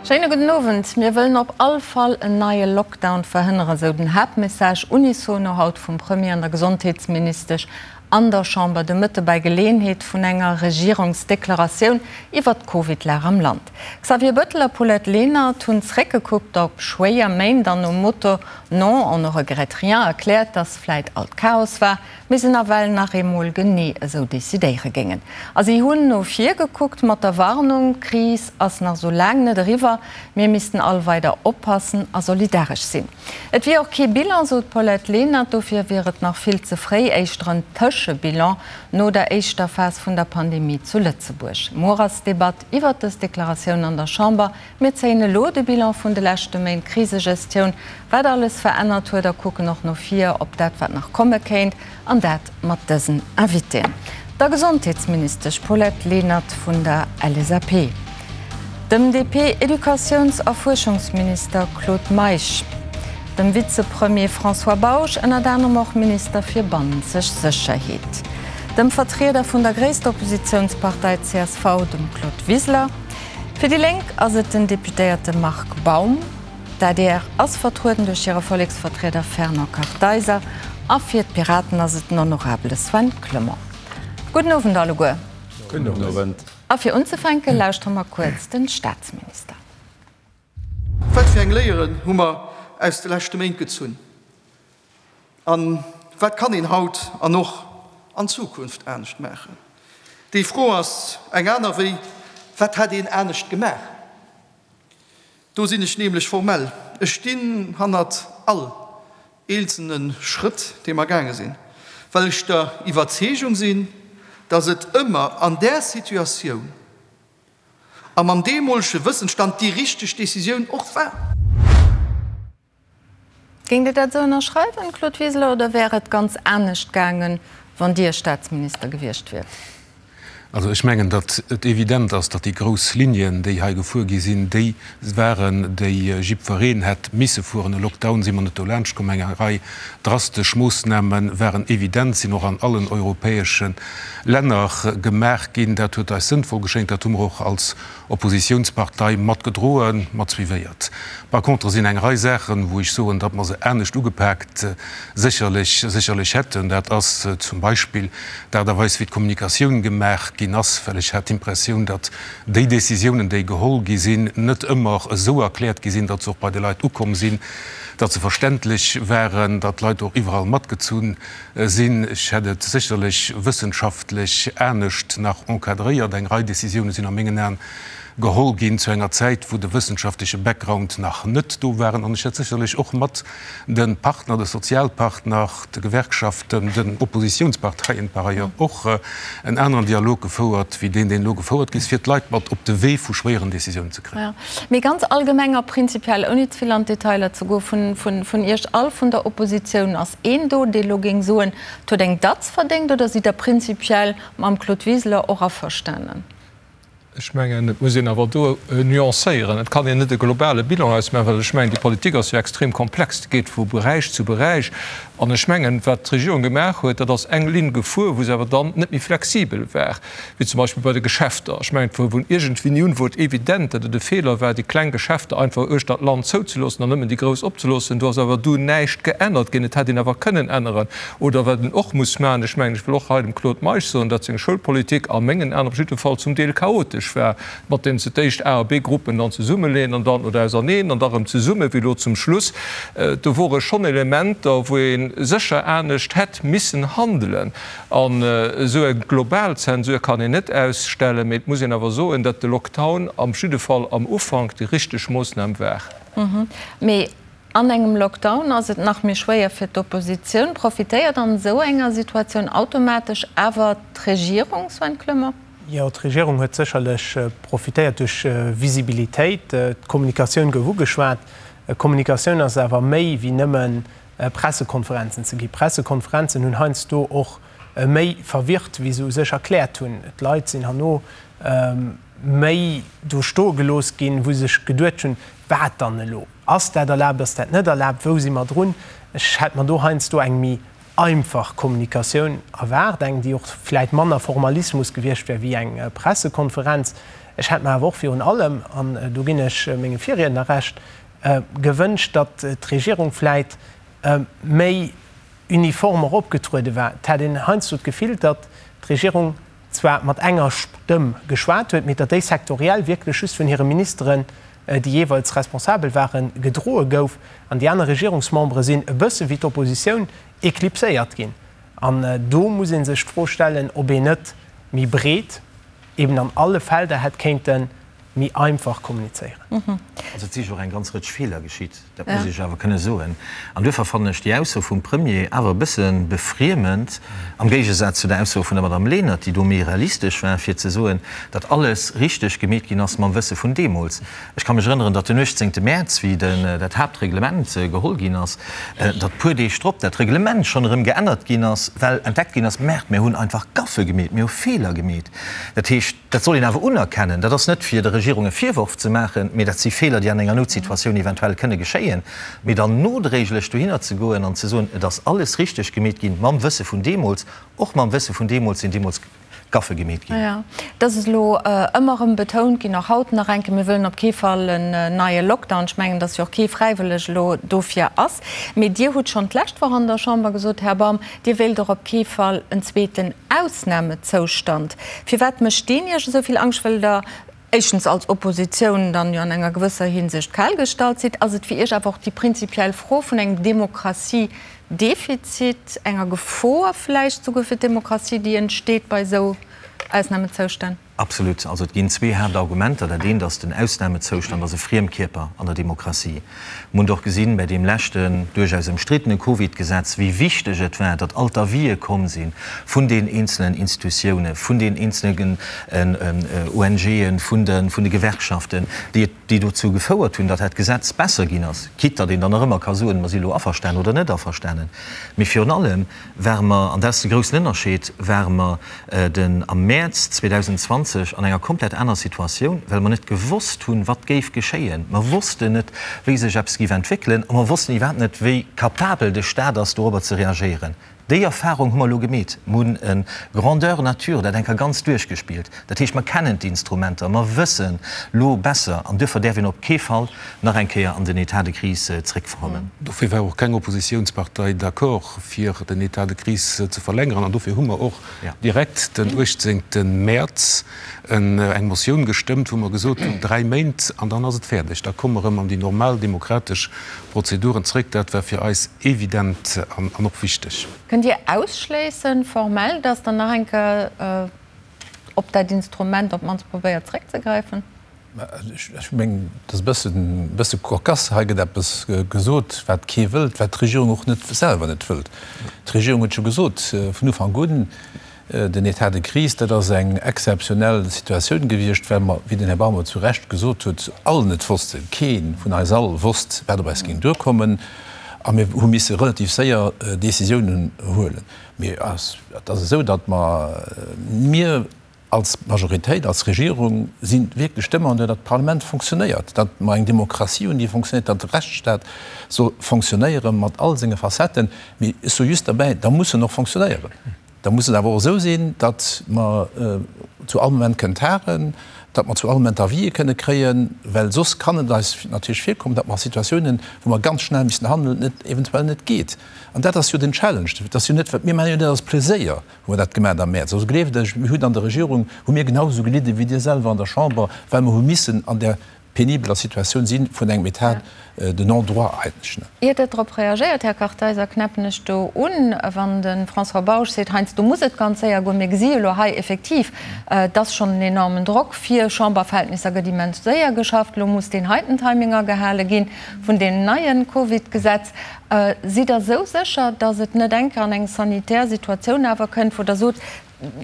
Schéine gudden Owend. Mir wëllen op all Fall en neie Lockdown verhënneren, esou den Haaptmessage unisono haut vum Premier an der Gesondheetsministesch an der Chamber de Mëtte bei Geleeënheet vun enger Regierungsdeklaratioun iwwert d'Covid-Lag am Land. Xavier Bettel a Paulette Lenert hunn zréckgekuckt op schwéier Méint an nom Motto Non, on ne regrette rien erkläert, dass vläit alt Chaos war, mee se nawell nach eemol genee esou decidéiere géingen. A si hunn no vir gekuckt mat der Warnung, D'Kris ass nach esou laang net eriwwer, mir missten all weider oppassen a solidaresch sinn. Et wier och kee Bilan, sot d'Paulette Lenert, dofir wier et nach vill ze fréi, éischter en Tëschebilan no der éischter Phas vun der Pandemie zu Lëtzebuerg. Muer ass d'Debatt iwwert dës Deklaratioun an der Chamber. Mir zéien elo de Bilan vun de leschte Méint Krisegestioun, wat alles verännert huet a kucken och no vir op dat, wat nach komme kéint, an dat mat dësen Invitéen, der Gesondheetsministesch Paulette Lenert vun der LSAP, dem DP-Educatiouns a Fuerschungsminister Claude Meisch, dem Vizepremier François Bausch, ënnert anerem och Minister fir bannenzeg Sécherheet, dem Vertrieder vun der gréisster Oppositiounspartei csv, dem Claude Wiseler. Fir déi Lénk ass et den Deputéierte Marc Baum. D'adr ass vertrueden duerch hire Volleksvertrieder Fernand Kartheiser a fir d'Piraten ass et den Honorabele Sven Clement. Gudden Owend alleguer. Gudden Owend. A fir unzefänke lauschtere mer kuerz den Staatsminister. Wat fir eng Léieren hu mer aus de leschte Méint gezunn? A wat kann een haut an och an Zukunft anescht maachen? Déi Fro ass eng aner wéi, Wat hätt een anescht gemaach? Do sinn ech nämlech formell. Ech stinn hannert all eenzelne Schrëtt, dee mer gaange sinn, well ech der Iwwerzeegung sinn, datt et ëmmer an där Situatioun a mam deemolege Wëssensstand déi richteg Decisioun och war. Géingt Dir dat esou ënnerschreiwen, Claude Wiseler, oder wär et ganz anescht gaangen, wann Dir Staatsminister gewiescht wiert? Also ech mengen, datt et evident ass, datt déi grouss Linien, déi hei gefuer gi sinn, déi waren, déi jiddwereen hätt misse fueren. E Lockdown si mer net dolaanscht komm. Eng Rei drastesch Moossname waren evident, sinn och an allen europäesche Länner gemaach ginn. Dat huet eis sënnvoll geschéngt. Dat hu mer och als Oppositiounspartei mat gedroen, mat suivéiert. Par contre sinn eng Rei Saachen, wou ech soen, datt mer se anescht ugepaakt sécherlech, sécherlech hätten. Dat ass zum Beispill d'Aart a Weis, wéi d'Kommunikatioun gemaach ginn ass, well ech hat d'Impressioun, datt déi Décisiounen, déi geholl gi sinn, net ëmmer esou erkläert gi sinn, datt se och bei de Leit ukomm sinn, datt se verständlech waren, datt d'Leit och iwwerall matgezunn Sinn. Ech hätt et sécherlech wëssenschaftlech anescht nach encadréiert. Eng Rei Décisioune sinn a mengen Aen geholl ginn zu enger Zäit, wou de wëssenschaftleche Background nach net do waren. An ech hätt sécherlech och mat de Partner, de Sozialpartner, de Gewerkschaften, den Oppositionsparteien par ailleurs och en aneren Dialog gefouert wéi deen, deen elo gefouert gi ass, fir d'Leit mat op de Wee vu schwéieren Décisiounen ze kréien. Mee ganz allgemeng a prinzipiell, ouni ze vill an d'Detailer ze goen, vun Iech all, vun der Oppositioun, ass een do, dee elo géing soen, et huet eng Datz verdéngt, oder sidd Der prinzipiell mam Claude Wiseler och averstanen? Ech mengen, et muss een awer do nuancéieren. Et kann een net e globale Bilan ausmaachen, well ech mengen, déi Politik ass jo extrem komplex, déi geet vu Beräich zu Beräich. An ech mengen, wat d'Regierung gemaach huet, dat ass eng Linn gefuer, wou se awer dann net méi flexibel war. wéi zum Beispill bei de Geschäfter. Ech mengen, et wor vun iergendwéini un wor et evident, datt et e Feeler war, déi kleng Geschäfter einfach uechter d'Land zouzeloossen an nëmmen déi grouss opzeloossen. Do ass awer dunn näischt geännert ginn. Et hätt een awer kënnen änneren. Oder wat een och muss maachen, ech mengen, ech wëll och hei dem Claude Meisch soen, datt seng Schoulpolitik a mengen Aen op jidde Fall zum Deel chaotesch war, mat deem se d'éischt A a B-Gruppen dann zesummeleeën an dann, oder auserneen an da rëm zesummen, wéi elo zum Schluss. Do wore schonn Elementer, wou ee sécher anescht hätt missen handelen. An esou eng global Zensur kann een net ausstellen, mee et muss een awer soen, datt de Lockdown am jidde Fall am Ufank déi richteg Moossnam war. Mee an engem Lockdown ass et nach méi schwéier fir d'Oppositioun. Profitéiert an esou enger Situatioun automatesch awer d'Regierung, Sven Clement? Jo, d'Regierung huet sécherlech profitéiert duerch Visibilitéit. D'Kommunikatioun gouf ugeschwat. Kommunikatioun ass awer méi wéi nëmmen Pressekonferenzen ze gi. Pressekonferenzen hunn heiansdo och méi verwirrt, wéi se u sech erkläert hunn. D'Leit sinn herno méi do stoe gelooss ginn, wou se sech geduet hunn, Wat dann elo? Ass dat erlaabt, ass dat net erlaabt, wou si mer drun? Ech hätt mer do heiansdo eng méi. einfach Kommunikatioun erwaart, eng, déi och vläit manner Formalismus gewiescht wär wéi eng Pressekonferenz. Ech hätt mer awer och virun allem, an do ginn ech mengem Virriedner Recht, gewënscht, datt d'Regierung vläit méi uniform och opgetruede war. Et hat een heiansdo d'Gefill, datt d'Regierung zwar mat enger Stëmm geschwat huet, mee datt déi sektoriell wierklech just vun hire Ministeren, déi jeeweils responsabel waren, gedroe gouf an déi aner Regierungsmembere sinn e bësse wéi d'Oppositioun eklipséiert ginn. An do muss ee sech d'Fro stellen, ob een net méi breet eben an alle Felder hätt kéinte méi einfach kommunizéieren. Also et si jo och eng ganz Rëtsch Feeler geschitt, dat muss ech awer kënne soen. An duerfir fannen ech déi Ausso vum Premier awer e bësse befriemend, am Géigesaz zu der Ausso vun der Madame Lenert, déi do méi realistesch war, fir ze soen, datt alles richteg gemeet ginn ass mam Wësse vun deemools. Ech ka mech erënneren, datt den 18. Mäerz, wéi dat Haaptreglement geholl ginn ass, datt puer Deeg drop dat Reglement schonn erëm geännert ginn ass, well entdeckt ginn ass, Merde, mir hunn einfach Gaffe gemeet, mir hu Feeler gemeet. Dat heescht, Dat soll een awer unerkennen. Dat ass net, fir der Regierung e Virworf ze maachen, mee dat si Feeler, déi an enger Noutsituatioun eventuell kënne geschéien. Mee dann nodréiglech dohinner ze goen an ze soen, et ass alles richteg gemeet ginn, mam Wësse vun deemools, och mam Wësse vun deemools sinn deemools Gaffe gemeet ginn. Jo, dat ass elo ëmmer erëm betount ginn, och haut nach eng Kéier, mir wëllen op kee Fall en neie Lockdown. Ech mengen, datt jo och kee fräiwëlleg elo dofir ass. Mee Dir hutt schonn d'lescht Woch an der Chamber gesot, Här Baum, Dir wéilt och op kee Fall en zweeten Ausnamezoustand. Firwat mécht deen Iech esou vill Angscht? Wëll Der éischtens als Oppositioun dann jo an enger gewësser Hinsicht kal gestallt sidd? Ass et fir Iech awer och déi prinzipiell Fro vun engem Demokratiedefizit, enger Gefor vläicht souguer fir d'Demokratie, déi entsteet bei esou Ausnamezoustänn? Absolut. Also et ginn zwee Haaptargumenter. Dat eent ass, den Ausnamezoustand ass e Friemkierper an der Demokratie. Mir hunn och gesinn, bei deem leschten, duerchaus ëmstriddene Covid-Gesetz, wéi wichteg et war, datt all d'Avisë komm si vun den eenzelen Institutiounen, vun den eenzelen ONGen, vun de Gewerkschaften, déi et, déi dozou gefouert hunn, datt dat Gesetz besser ginn ass, quitte datt een dann nach ëmmer ka soen, mer si elo averstanen oder net averstanen. Mee virun allem ware mer, an dat ass de groussen Ënnerscheed, ware mer den am Mäerz 2020 an enger komplett aner Situatioun, well mer net gewosst hunn, wat géif geschéien. Mer wossten net, wéi sech eppes géif entwéckelen a mer wossten iwwerhaapt net, wéi capabel de Stat ass, dorobber ze reagéieren. Déi Erfahrung hu mer elo gemeet. Mer hunn e Grandeur nature dat eng Kéier ganz duerchgespillt. Dat heescht, mer kennen d'Instrumenter, mer wëssen lo besser an duerfir däerf een op kee Fall nach eng Kéier an den État de crise zréckverkommen. Dofir war och keng Oppositiounspartei d'accord, fir den État de crise ze verlängeren. An dofir hu mer och direkt den 18. Mäerz eng Motioun gestëmmt, wou mer gesot hunn, dräi Méint an dann ass et fäerdeg, da komme mer erëm an déi normal demokratesch Prozeduren zréck. Dat war fir eis evident an och wichteg. Kënnt Dir ausschléissen, formell, datt Der nach eng Kéier op dat Instrument op d'mannst probéiert zréckzegräifen? Ech mengen, et ass e bëssen, e bësse cocasse. Hei gëtt eppes gesot, wat kee wëllt, wat d'Regierung och net selwer net wëllt. D'Regierung huet jo gesot vun Ufank un, den État de crise, dat ass eng exzeptionell Situatioun gewiescht, well mer, wéi den Här Barmot zu Recht gesot huet, all net wossten, kee vun eis all wosst, wat op eis géing duerkommen, a mir hu misse relativ séier Décisiounen huelen. Mee et ass esou, datt mer, mir, Als Majoritéit, als Regierung si wierklech Demandeur, datt d'Parlament fonctionnéiert, datt mer eng Demokratie hunn, déi fonctionnéiert, datt de Rechtsstaat soll fonctionnéiere mat all senge Facetten. Mee ech soe just derbäi, da muss en och fonctionnéieren. Da muss et awer och esou sinn, datt mer zu all Moment kënnen tagen, datt mer zu all Moment Avisë kënne kréien, well soss kann et eis natierlech virkommen, datt mer a Situatiounen, wou mer ganz schnell missen handeln, et eventuell net geet. An dat ass jo den Challenge. Dat ass jo net, wat mir maachen jo net aus Pleséier. Hu mer dat gemaat am Mäerz. Also gleeft ech, mir hunn an der Regierung, hu mir genau esou gelidde wéi Dir selwer an der Chamber, well mer hu missen an där penibeler Situatioun si vun engem État de non-droit eigentlech. Ier Der drop reagéiert, Här Kartheiser, knäppen ech do un, wann de François Bausch seet, heiansdo muss et ganz séier goen. Mir gesi jo elo hei effektiv, et ass schonn en enormen Drock, fir Chamberverhältnisser gëtt immens séier geschafft. Elo muss deen heiten Timing agehale gi vun deem neie Covid-Gesetz. Sidd Der esou sécher, datt et net eng Kéier an eng sanitär Situatioun awer kënnt, wou Der sot,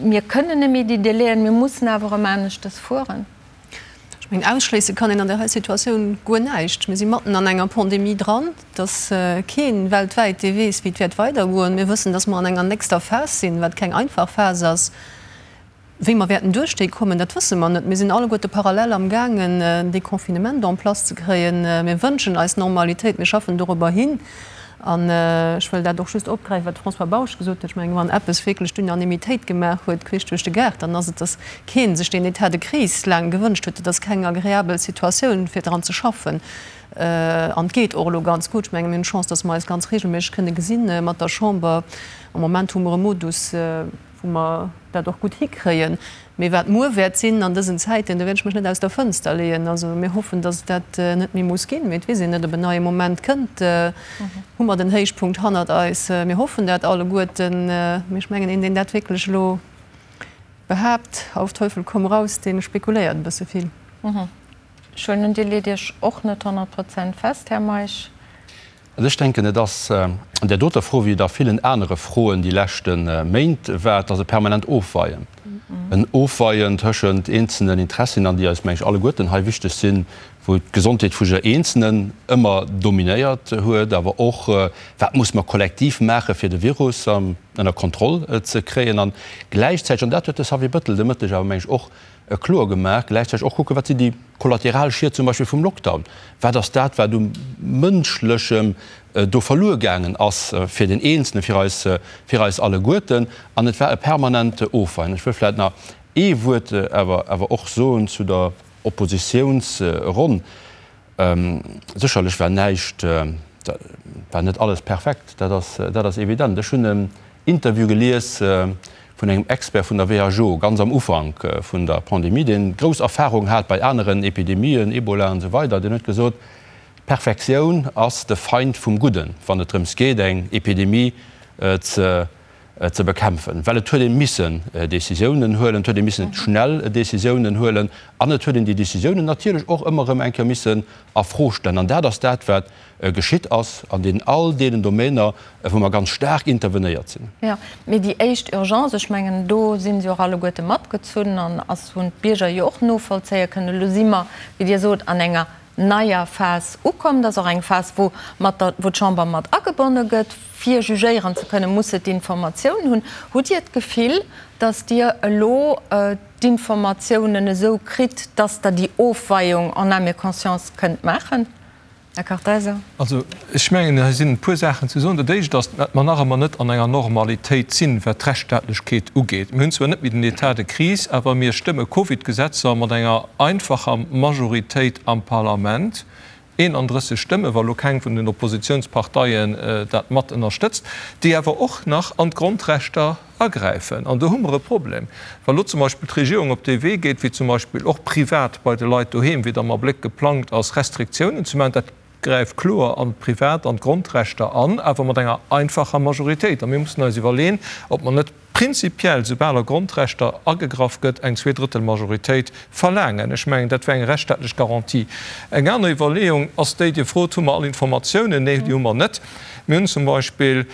mir kënnen net méi déi Délaiën, mir mussen awer erëm aneschtes fueren? Ech mengen, ausschléisse kann een an där hei Situatioun guer näischt. Mir si matten an enger Pandemie dran. Et ass kee weltwäit, dee weess, wéi et wäert weidergoen. Mir wëssen, datt mer an enger nächster Phas sinn, wat keng einfach Phas ass. Wéi mer wäerten duerch déi kommen, dat wësse mer net. Mir sinn alleguerte parallel amgaangen, en Deconfinement en place ze kréien. Mir wënschen eis Normalitéit, mir schaffen dorobber hin. An ech wëll dat och just opgräifen, wat de François Bausch gesot huet. Ech mengen, wann eppes wierklech d'Unanimitéit gemaach huet, queesch duerch de Gaart, dann ass et, datt kee sech deen État de crise laang gewënscht huet. Et ass keng agreabel Situatioun, fir dran ze schaffen. An et geet och elo ganz gutt. Ech mengen, mir hunn d'Chance, datt mer eis ganz regelméisseg kënne gesinn mat der Chamber. Am Moment hu mer e Modus, wou mer dat och gutt hikréien. Mee wat muer wäert sinn an dësen Zäiten, do wäert ech mech net aus der Fënster leeën. Also mir hoffen, datt et dat net méi muss ginn, mee et weess een net, ob en neie Moment kënnt. Hu mer den Héichpunkt hannert eis? Mir hoffen dat alleguerten. Mee ech mengen, een, deen dat wierklech elo behaapt, auf Teufel komm raus, dee spekuléiert e bësse vill. Ech huelen un, Dir leet Iech och net 100 Prozent fest, Här Meisch. Also ech denken, et ass an där doter Fro, wéi et a villen anere Froen déi leschte Méint war, et ass e permanent Ofweien, en Ofweien tëschent eenzelnen Interessien an déi eis, meng ech, alleguerten hei wichteg sinn, wou d'Gesondheet vu jidder Eenzelnen ëmmer dominéiert huet, awer och, wat muss mer kollektiv maachen, fir de Virus ënner Kontroll ze kréien an gläichzäiteg, an dat huet de Xavier Bettel de Mëtteg awer, meng ech, och kloer gemaach, gläichzäiteg och kucken, wat sinn déi kollateral Schied zum Beispill vum Lockdown, wat ass dat, wat u Mënschlechem do verluer gaangen ass fir den Eenzelnen, fir eis, fir eis alleguerten. An et war e permanent Ofweien. Ech wëll vläicht nach ee Wuert awer, awer och soen zu der Oppositiounsronn. Sécherlech war näischt, war net alles perfekt, dat ass, dat ass evident. Ech hunn en Interview gelies vun engem Expert vun der WHO, ganz am Ufank vun der Pandemie, deen grouss Erfahrung hat bei aneren Epidemien, Ebola an esou weider, deen huet gesot, D'Perfektioun ass de Feind vum Gudden, wann et drëms geet, eng Epidemie ze ze bekämpfen, well et huet ee missen Décisiounen huelen, et huet ee missen schnell Décisiounen huelen an et huet een déi Décisiounen natierlech och ëmmer erëm eng Kéier missen a Fro stellen. An dat ass dat, wat geschitt ass an deenen all deenen Domainer, wou mer ganz staark intervenéiert sinn. Jo, mee déi éischt Urgence, ech mengen, do si se och alleguerte matgezunn an ass, hunn d'Bierger jo och novollzéie kënnen. Elo si mer, wéi Dir sot, an enger neier Phas ukomm. Dat ass och eng Phas, wou mat der, wou d'Chamber mat agebonne gëtt. Fir jugéieren ze kënnen, muss se d'Informatioun hunn. Hutt Dir d'Gefill, datt Dir elo d'Informatiounen esou kritt, datt Der déi Ofweiung en âme et conscience kënnt maachen, Här Kartheiser? Also, ech mengen, hei sinn e puer Saachen ze soen. Dat Éischt ass, datt mer nach ëmmer net an enger Normalitéit sinn, wat d'Rechtsstaatlechkeet ugeet. Mir hunn zwar net méi den État de crise, awer mir stëmme Covid-Gesetzer mat enger einfacher Majoritéit am Parlament, 31 Stëmme, wa lo keng vun den Oppositionsparteien dat mat ënnerstëtzt, déi awer och nach an d'Grondrechter agräifen. An do hu mer e Problem, wa lo zum Beispill d'Regierung op dee Wee geet, wéi zum Beispill och privat bei de Leit doheem, wéi et am Abléck geplangt ass, Restriktiounen ze maachen. Dat gräift kloer an d'Privat an d'Grondrechter an, awer mat enger einfacher Majoritéit. A mir mussen eis iwwerleen, ob mer net prinzipiell, soubal a Grondrechter agegraff gëtt, eng Zweedrëttelmajoritéit verlaangen. Ech mengen, dat wär eng rechtsstaatlech Garantie. Eng aner Iwwerleeung ass déi, Dir frot, Hu mer all Informatiounen? Nee, déi hu mer net. Mir hunn zum Beispill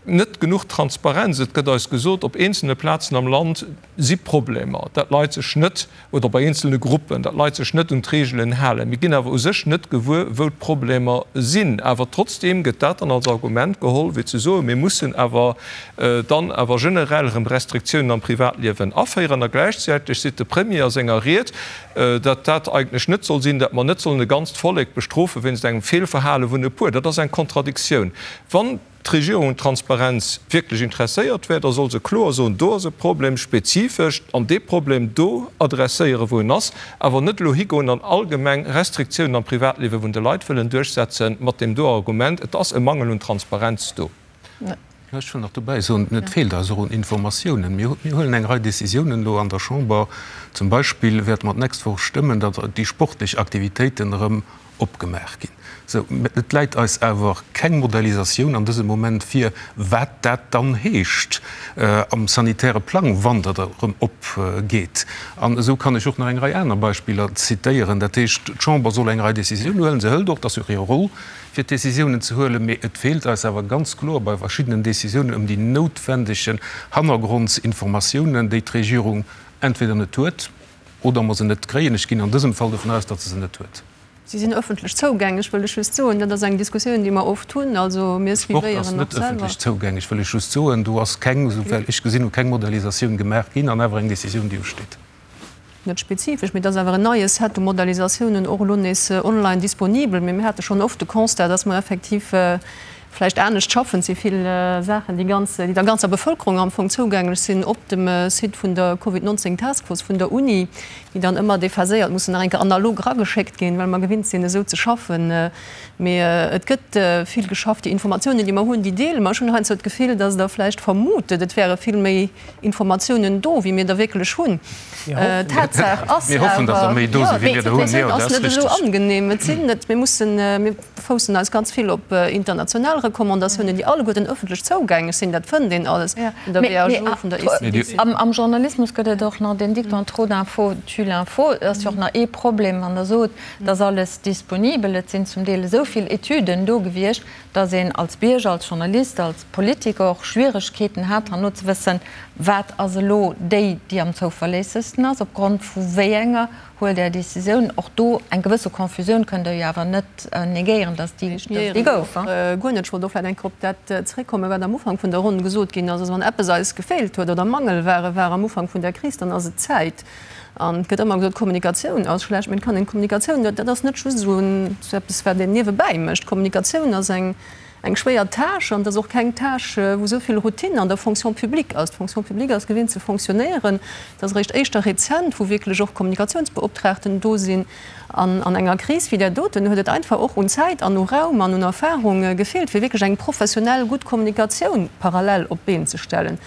net genuch Transparenz. Et gëtt eis gesot, op eenzelne Plazen am Land si Problemer, dat d'Leit sech net, oder bei eenzelne Gruppen, datt d'Leit sech net un d'Reegelen halen. Mir ginn awer u sech net gewuer, wou d'Problemer sinn. Awer trotzdeem gëtt dat dann als Argument geholl, fir ze soen, mir mussen awer dann awer generell erëm Restriktiounen am Privatliewen aféieren. A gläichzäiteg seet de Premier a senger Ried, datt dat eigentlech net soll sinn, datt mer net sollen e ganzt Vollek bestrofe wéinst engem Feelverhale vun e puer. Dat ass eng Kontradiktioun. Wann d'Regierung un Transparenz wierklech interesséiert wär, da soll se kloer soen, do ass e Problem, spezifesch, an dee Problem do adresséieren, wou en ass, awer net elo higoen an allgemeng Restriktiounen am Privatliewe vun de Leit wëllen duerchsetzen, mat deem do Argument, et ass e Mangel un Transparenz do. Ech wëll nach dobäi soen, et feelt eis och un Informatiounen. Mir huelen eng Rei Décisiounen elo an der Chamber. Zum Beispill wäerte mer d'nächst Woch stëmmen, datt déi sportlech Aktivitéiten erëm opgemaach ginn. Sou, et läit eis awer keng Modellisatioun an dësem Moment vir, wat dat dann heescht am sanitäre Plang, wann dat erëm opgeet. An esou kann ech och nach eng Rei aner Beispiller zitéieren. Dat heescht, d'Chamber soll eng Rei Décisiounen huelen. Se hëlt och, dat ass jo och hir Roll, fir d'Décisiounen ze huelen, mee et feelt eis awer ganz kloer bei verschiddenen Décisiounen ëm déi noutwendegen Hannergrondsinformatiounen, déi d'Regierung entweder net huet oder mer se net kréien. Ech ginn an dësem Fall dovun aus, datt se se net huet. Si sinn öffentlech zougänglech, wëll ech just soen. Dat ass eng Diskussioun, déi mer oft hunn. Also mir Sport ass suivéieren net och selwer. öffentlech zougänglech, wëll ech just soen. Do ass keng, esouwäl ech gesinn hunn, keng Modellisatioun gemaach ginn an awer eng Décisioun, déi usteet. Net spezifesch, mee et ass awer en neie Set u Modellisatiounen och elo nees online disponibel. Mee mir hate schonn oft de Constat, dass mer effektiv vläicht anescht schaffen. Et si vill Saachen, déi ganz, déi der ganzer Bevëlkerung am Fong zougänglech sinn op dem Site vun der Covid 19 Task Force vun der Uni, déi dann ëmmer déphaséiert mussen nach eng Kéier analog erageschéckt ginn, well mer gewinnt sinn, esou ze schaffen. Mee et gëtt vill geschafft. Déi Informatiounen, déi mer hunn, déi deele mer. Ech hunn heiansdo d'Gefill, dass Der vläicht vermutet, et wäre vill méi Informatiounen do, wéi mir der wierklech hunn. Tatsaach ass awer, jo, d'Situatioun ass net esou angenehm. Et sinn net, mir mussen, mir foussen eis ganz vill op international Recommandatiounen, déi alleguerten ëffentlech zougänglech sinn. Dat fënnt een alles vun der WHO, vun der ECDC. Am Journalismus gëtt et och nach den Dicton trop d'infos tue l'info. Et ass jo och nach ee Problem, wann Der sot, et ass alles disponibel. Et sinn zum Deel esou vill Etüden do gewiescht, dass een als Bierger, als Journalist, als Politiker och Schwieregkeeten hat, herno ze wëssen, wat ass elo déi, déi am zouverléissegsten ass, opgrond vu wéi enger huelt Der Décisioun. Och do eng gewësse Confusioun kënnt Der jo awer net negéieren, dass déi déi gouf. Guer net. Ech wollt och vläicht eng Kéier op dat zréckkommen, wat am Ufank vun der Ronn gesot ginn ass. Also wann eppes eis gefeelt huet oder Mangelware war am Ufank vun der Kris, dann ass et d'Zäit. An et gëtt ëmmer gesot, Kommunikatioun ass schlecht, mee et kann een Kommunikatioun, dat ass net just esou eppes, wat een niewebäi mécht. Kommunikatioun ass eng eng schwéier Tâche an et ass och keng Tâche, wou esou vill Routine an der Fonction publique ass. D'Fonction publique ass gewinnt ze fonctionnéieren. Et ass eréischt éischter rezent, wou wierklech och Kommunikatiounsbeoptraagten do sinn. An an enger Kris wéi där doten huet et einfach och un Zäit an u Raum an un Erfahrung gefeelt, fir wierklech eng professionell gutt Kommunikatioun parallel op d'Been ze stellen.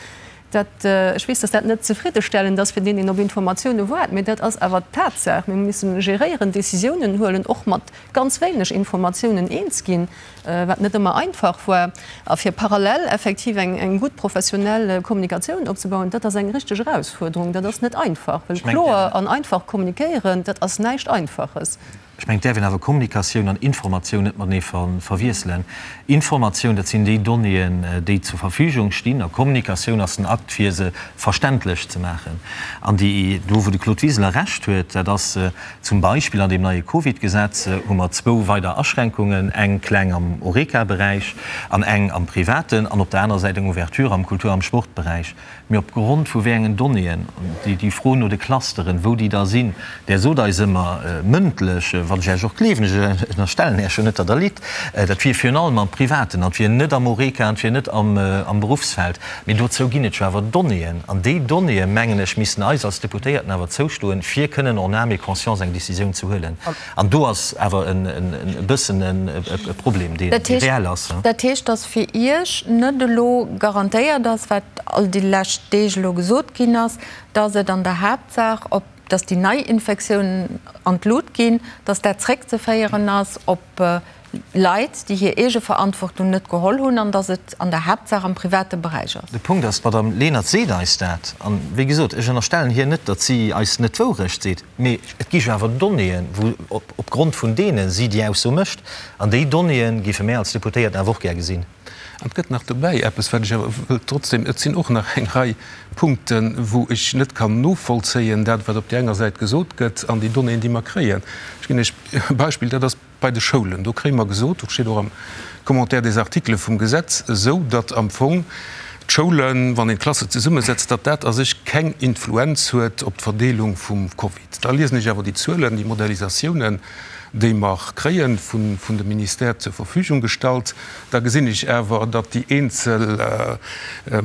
Dat, ech weess, dass dat net zefriddestellend ass fir deen, deen op Informatioune waart, mee dat ass awer d'Tatsaach. Mir hu missen geréieren, Décisiounen huelen, och mat ganz wéineg Informatiounen eens ginn, wat net ëmmer einfach war. A fir parallel effektiv eng, eng gutt professionell Kommunikatioun opzebauen, dat ass eng richteg Erausfuerderung. Dat ass net einfach, well kloer an einfach kommunikéieren, dat ass näischt Einfaches. Ech mengen, et däerf een awer Kommunikatioun an Informatioun net matenee verwiesselen. Informatioun, dat sinn déi Donnéeën, déi zur Verfügung stinn, a Kommunikatioun ass den Akt, fir se verständlech ze maachen. An déi, do wou de Claude Wiseler Recht huet, dat ass zum Beispill an deem neie Covid-Gesetz hu mer zwou weider Aschränkungen, eng kleng am Horeca-Beräich an eng am Privaten, an op der anerer Säit eng Ouverture am Kultur am Sportberäich. Mee op Grond vu wéi engen Donnéeën, déi Fro no de Clusteren, wou déi da sinn, Där sot eis ëmmer mëndlech, wat ech Iech och gleewen, ech ënnerstellen Iech jo net, datt Der litt, dat wier virun allem am Privaten an et wier net am Horeca an et wier net am Beruffsfeld. Mee dozou ginn et jo awer Donnéeën. An déi Donnéeë, mengen ech, missten eis als Deputéierten awer zoustoen, fir kënnen en âme et conscience eng Décisioun ze huelen. An do ass awer e bëssen e Problem, dee reell ass. Dat heescht, datt fir Iech net elo garantéiert ass, wat all déi lescht Deeg elo gesot ginn ass, datt et an der Haaptsaach op, datt déi Neiinfektiounen an d'Lut ginn, datt dat zréckzeféieren ass op Leit, déi hir Eegeverantwortung net geholl hunn an datt et an der Haaptsaach am private Beräich ass. De Punkt ass, d'Madame Lenert seet eis dat. An, wéi gesot, ech ënnerstellen hir net, datt si eis net d'Wourecht seet. Mee et gi jo awer Donnéeën, wou op Grond vun deene si déi Ausso mécht. An déi Donnéeë géife mär als Deputéierten awer och gär gesinn. An et gëtt nach dobäi eppes, wat ech awer wëllt trotzdem, et sinn och nach eng Rei Punkten, wou ech net kann novollzéien, dat wat op där enger Säit gesot gëtt an déi Donnéeën, déi mer kréien. Ech ginn Iech e Beispill, dat ass Bei de Schoulen, do kréie mer gesot, dat steet och am Commentaire des articles vum Gesetz esou, datt am Fong d'Schoulen, wann een d'Klasse zesummesetzt, datt dat a sech keng Influenz huet op d'Verdeelung vum Covid. Da liesen ech awer déi Zuelen, déi Modellisatiounen, déi mer kréie vun de Ministère zur Verfügung gestallt, da gesinn ech awer, datt déi eenzel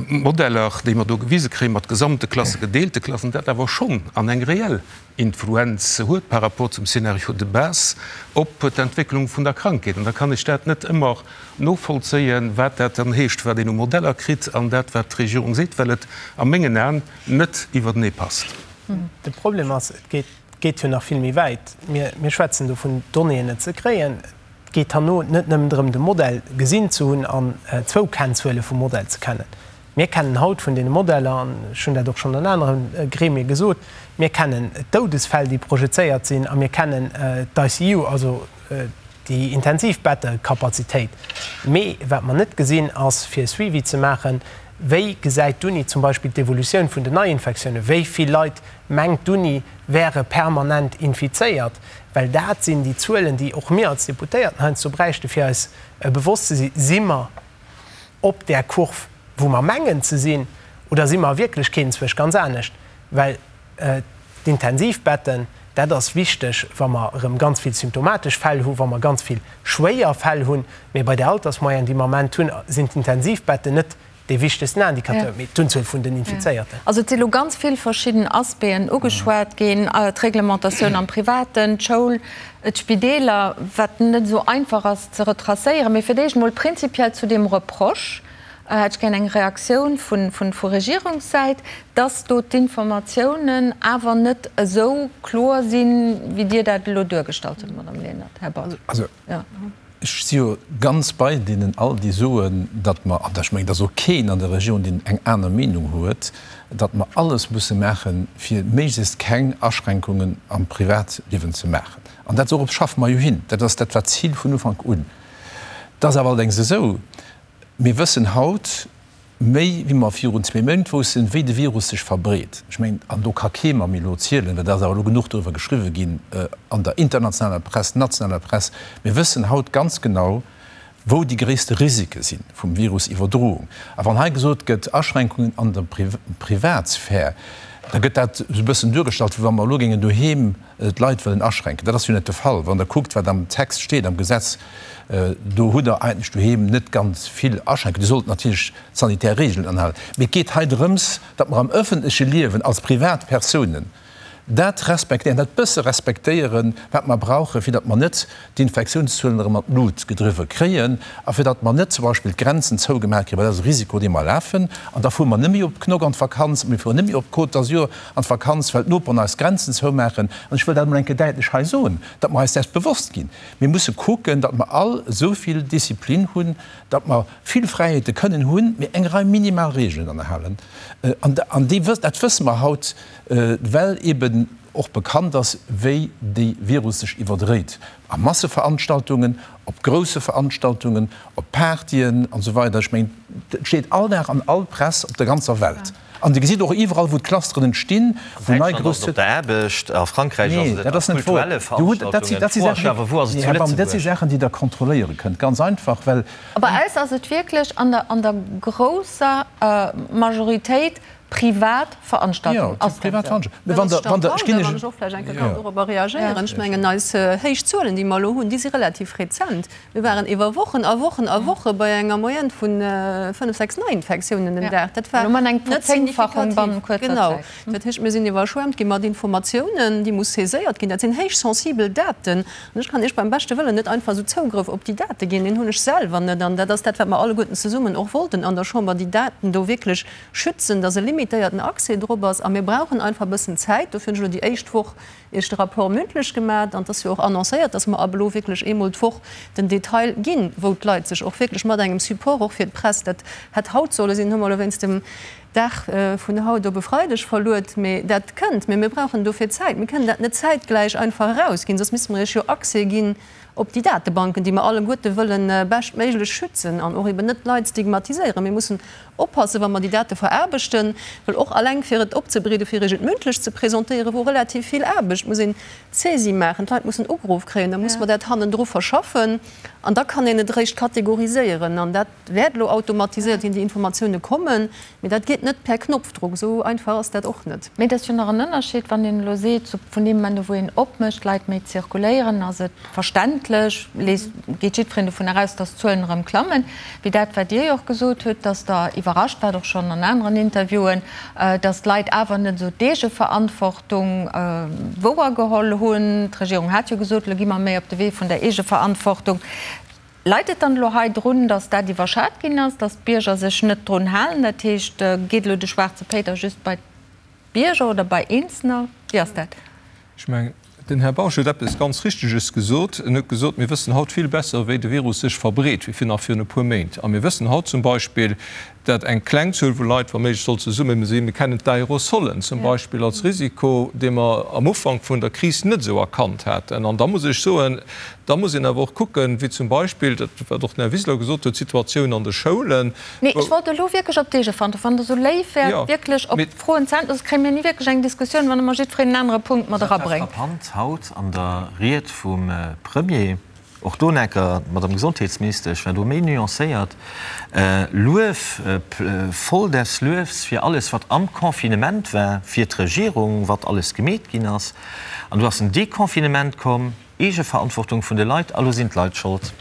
Modeller, déi mer do gewise kréien, mat gesamte Klassen, gedeelte Klassen, dat awer schonn an eng reell Influenz huet par rapport zum Scénario de base op d'Entwécklung vun der Krankheet. An da kann ech dat net ëmmer novollzéien, wat dat dann heescht, wat een u Modeller kritt an dat, wat d'Regierung seet, well et a mengen Aen net iwwertenee passt. De Problem ass, et geet jo nach vill méi wäit. Mir schwätzen do vun Donnéeën net ze kréien. Et geet herno net nëmmen drëm, de Modell gesinn ze hunn an zwou Kennzuele vum Modell ze kennen. Mir kennen haut vun deene Modeller, an ech hunn dat och schonn an anere Gremie gesot, mir kennen d'Doudesfäll, déi projezéiert sinn, a mir kennen d'ICU, also déi Intensivbettecapacitéit. Mee wat mer net gesinn, ass, fir e Suivi ze maachen, Wéi gesäit d'Uni zum Beispill d'Evolutioun vun den Neiinfektiounen? Wéi vill Leit, mengt d'Uni, wäre permanent infizéiert? Well dat sinn déi Zuelen, déi och mir als Deputéierten heiansdo bräichten, fir eis bewosst ze sinn, Si mer op där Kurv, wou mer mengen ze sinn, oder si mer a Wierklechkeet enzwousch ganz anescht? Well. D'Intensivbetten, dat ass wichteg, wa mer erëm ganz vill symptomatesch Fäll hu, wa mer ganz vill schwéier Fäll hunn. Mee bei där Altersmoyenne, déi mer am Ament hunn, sinn d'Intensivbetten net dee wichtegsten Indicateur, mee d'Unzuel vun den Infizéierten. Also et si lo ganz vill verschidden Aspecten ugeschwat ginn, d'Reglementatioun am Privaten, d'Schoul, d'Spideeler, wat net esou einfach ass ze retracéieren. Mee fir d'éischt emol prinzipiell zu deem Reproche hätt ech gär eng Reaktioun vu Regierungssäit, dass do d'Informatiounen awer net esou kloer sinn, wéi Dir dat elo duergestallt hutt, Madame Lenert. Här Baum. Ech si jo ganz bei deenen all, déi soen, datt mer, an ech mengen, et ass och keen an der Regierung, deen eng aner Meenung huet, datt mer alles musse maachen, fir méiglechst keng Aschränkungen am Privatliewen ze maachen. An dat, dorop schaffe mer jo hin. Dat ass, dat war d'Zil vun Ufank un. Et ass awer allerdéngs esou, Mir wëssen haut méi, wéi mer virun zwee Méint woussten, wéi de Virus sech verbreet. Ech mengen, an do ka kee mer méi elo zielen, well et ass awer elo genuch doriwwer geschriwwe ginn an der internationaler Press, nationaler Press, mir wëssen haut ganz genau, wou déi gréisste Risike si vum Virusiwwerdroung. A wann hei gesot gëtt, Aschränkungen an der Privatsphär, da gëtt dat esou e bëssen duergestallt, wéi wa mer elo géingen doheem d'Leit wëllen aschränken. Dat ass jo net de Fall. Wann Der kuckt, wat am Text steet, am Gesetz, do hutt Der eigentlech doheem net ganz vill Aschränkungen. Dir sollt natierlech d'sanitär Regeln anhalen. Mee et geet hei drëms, datt mer am öffentleche Liewen als Privatpersounen dat respektéieren, dat bësse respektéieren, wat mer brauchen, fir datt mer net d'Infektiounszuelen erëm an d'Lut gedriwwe kréien a fir datt mer net zum Beispill d'Grenzen zougemaach kréien, well dat ass e Risiko, dee mer lafen. An da fuere mer net méi op Knock an d'Vakanz, mir fueren net méi op d'Côte d'Azur an d'Vakanz, well d'Noperen eis d'Grenzen zoumaachen. An ech wëll dat emol eng Kéier däitlech hei soen, datt mer eis däers bewosst ginn. Mir musse kucken, datt mer all esou vill Disziplin hunn, datt mer vill Fräiheete kënnen hunn, mee eng Rei minimal Regeln anhalen. An déi, dat wësse mer haut, well eeben och bekannt ass, wéi dee Virus sech iwwerdréit a Masseveranstaltungen, op grousse Veranstaltungen, op Partyen an esou weider. Ech mengen, et steet all Dag an all Press op der ganzer Welt. An Dir gesitt och iwwerall, wou d'Clusteren entstinn, wou nei grouss. An Däitschland ass et op der Aarbecht, a Frankräich ass et a kulturelle Veranstaltungen. Dat si Dat si Saachen, déi Der kontrolléiere kënnt, ganz einfach, well. Bei eis ass et wierklech an der grousser Majoritéit privat Veranstaltungen. Jo, privat Veranstaltungen. Mä wann Der, wann Der, ech ginn Iech. Wann ech och vläicht eng Kéier kann dorobber reagéieren. Ech mengen, eis héich Zuelen, déi mer elo hunn, déi si relativ rezent. Mir waren iwwer Wochen a Wochen a Woche bei enger Moyenne vu fënnef, sechs Neiinfektiounen den Dag. Dat war net signifikativ. Genau. Dat heescht, mir sinn iwwerschwemmt gi mat Informatiounen, déi muss saiséiert ginn. Dat sinn héich sensibel Daten. An ech kann Iech beim beschte Wëllen net einfach esou Zougrëff op déi Date ginn. Deen hunn ech selwer net. An dat ass dat, wat mer alleguerten zesummen och wollten an der Chamber, déi Daten do wierklech schützen, dass e limitéierten Accès drop ass. A mir brauchen einfach e bëssen Zäit. Dofir hunn ech elo déi éischt Woch Iech de Rapport mündlech gemat. An et ass jo och annoncéiert, dass mer ab elo wierklech eemol d'Woch den Detail ginn, wou d'Leit sech och wierklech mat engem Support och fir d'Press, dat hätt haut solle sinn, hu mer elo wéinst dem Dag vun haut op e Freideg verluet, mee dat kënnt. Mee mir brauchen dofir Zäit. Mir kënnen dat net zäitgläich einfach erausginn, soss misste mer Iech jo Accès ginn op déi Datebanken, déi mer alleguerte wëlle beschtméiglech schützen an och eben net d'Leit stigmatiséieren. Mir mussen oppassen, wa mer déi Date veraarbechten, well och alleng fir et opzebereeden, fir Iech et mündlech ze presentéieren, wor relativ vill Aarbecht, muss een d'Saisie maachen, d'Leit mussen ugeruff kréien, da muss mer dat hannendru verschaffen an da kann een et eréischt kategoriséieren. An dat wäert elo automatiséiert ginn, déi Informatioune kommen, mee dat geet net per Knopfdruck, esou einfach ass dat och net. Mee et ass jo nach en Ënnerscheed, wann een elo seet, vun deem Moment u wou een opmécht, d'Leit méi zirkuléieren, ass et verständlech, geet jiddwereen dovun eraus, datt d'Zuelen erëm klammen, wéi dat wat Dir jo och gesot hutt, datt Der iwwerrascht waart, och schonn an aneren Interviewen, datt d'Leit awer net esou d'Eegeverantwortung wouergeholl hunn. D'Regierung hat jo gesot, elo gi mer méi op de Wee vun der Eegeverantwortung. Leit et dann elo hei drun, datt dat iwwerschat ginn ass, datt d'Bierger sech net drun halen? Dat heescht, geet elo de schwaarze Péiter just bei d'Bierger oder bei Eenzelner? Wéi ass dat? Ech mengen, den Här Bausch huet eppes ganz Richteges gesot. En huet gesot, mir wëssen haut vill besser, wéi de Virus sech verbreet, wéi nach virun e puer Méint. A mir wëssen haut zum Beispill, dat eng kleng Zuel vu Leit, wa méiglech, soll zesumme sinn. Mir kennen d'Aerosolen zum Beispill als Risiko, dee mer am Ufank vun der Kris net esou erkannt haten. An da muss ech soen, da muss een awer och kucken, wéi zum Beispill, dat wat och den Här Wiseler gesot huet, d'Situatioun an de Schoulen, Nee, ech wollt elo wierklech op d'Eegeverantwortung, wann Der esou léif wäert, wierklech op d'Froen ze äntweren, soss kréie mir ni wierklech eng Diskussioun, wann ëmmer jiddwereen en anere Punkt mat Dat war erabréngt. frappant haut an der Ried vum Premier. Och do necker, d'Madame Gesondheetsministesch war do méi nuancéiert, Luef, voll des Luefs fir alles, wat am Confinement war, fir d'Regierung, wat alles gemeet ginn ass. An du ass en Deconfinement komm, Eegeverantwortung vun de Leit, a lo sinn d'Leit schold.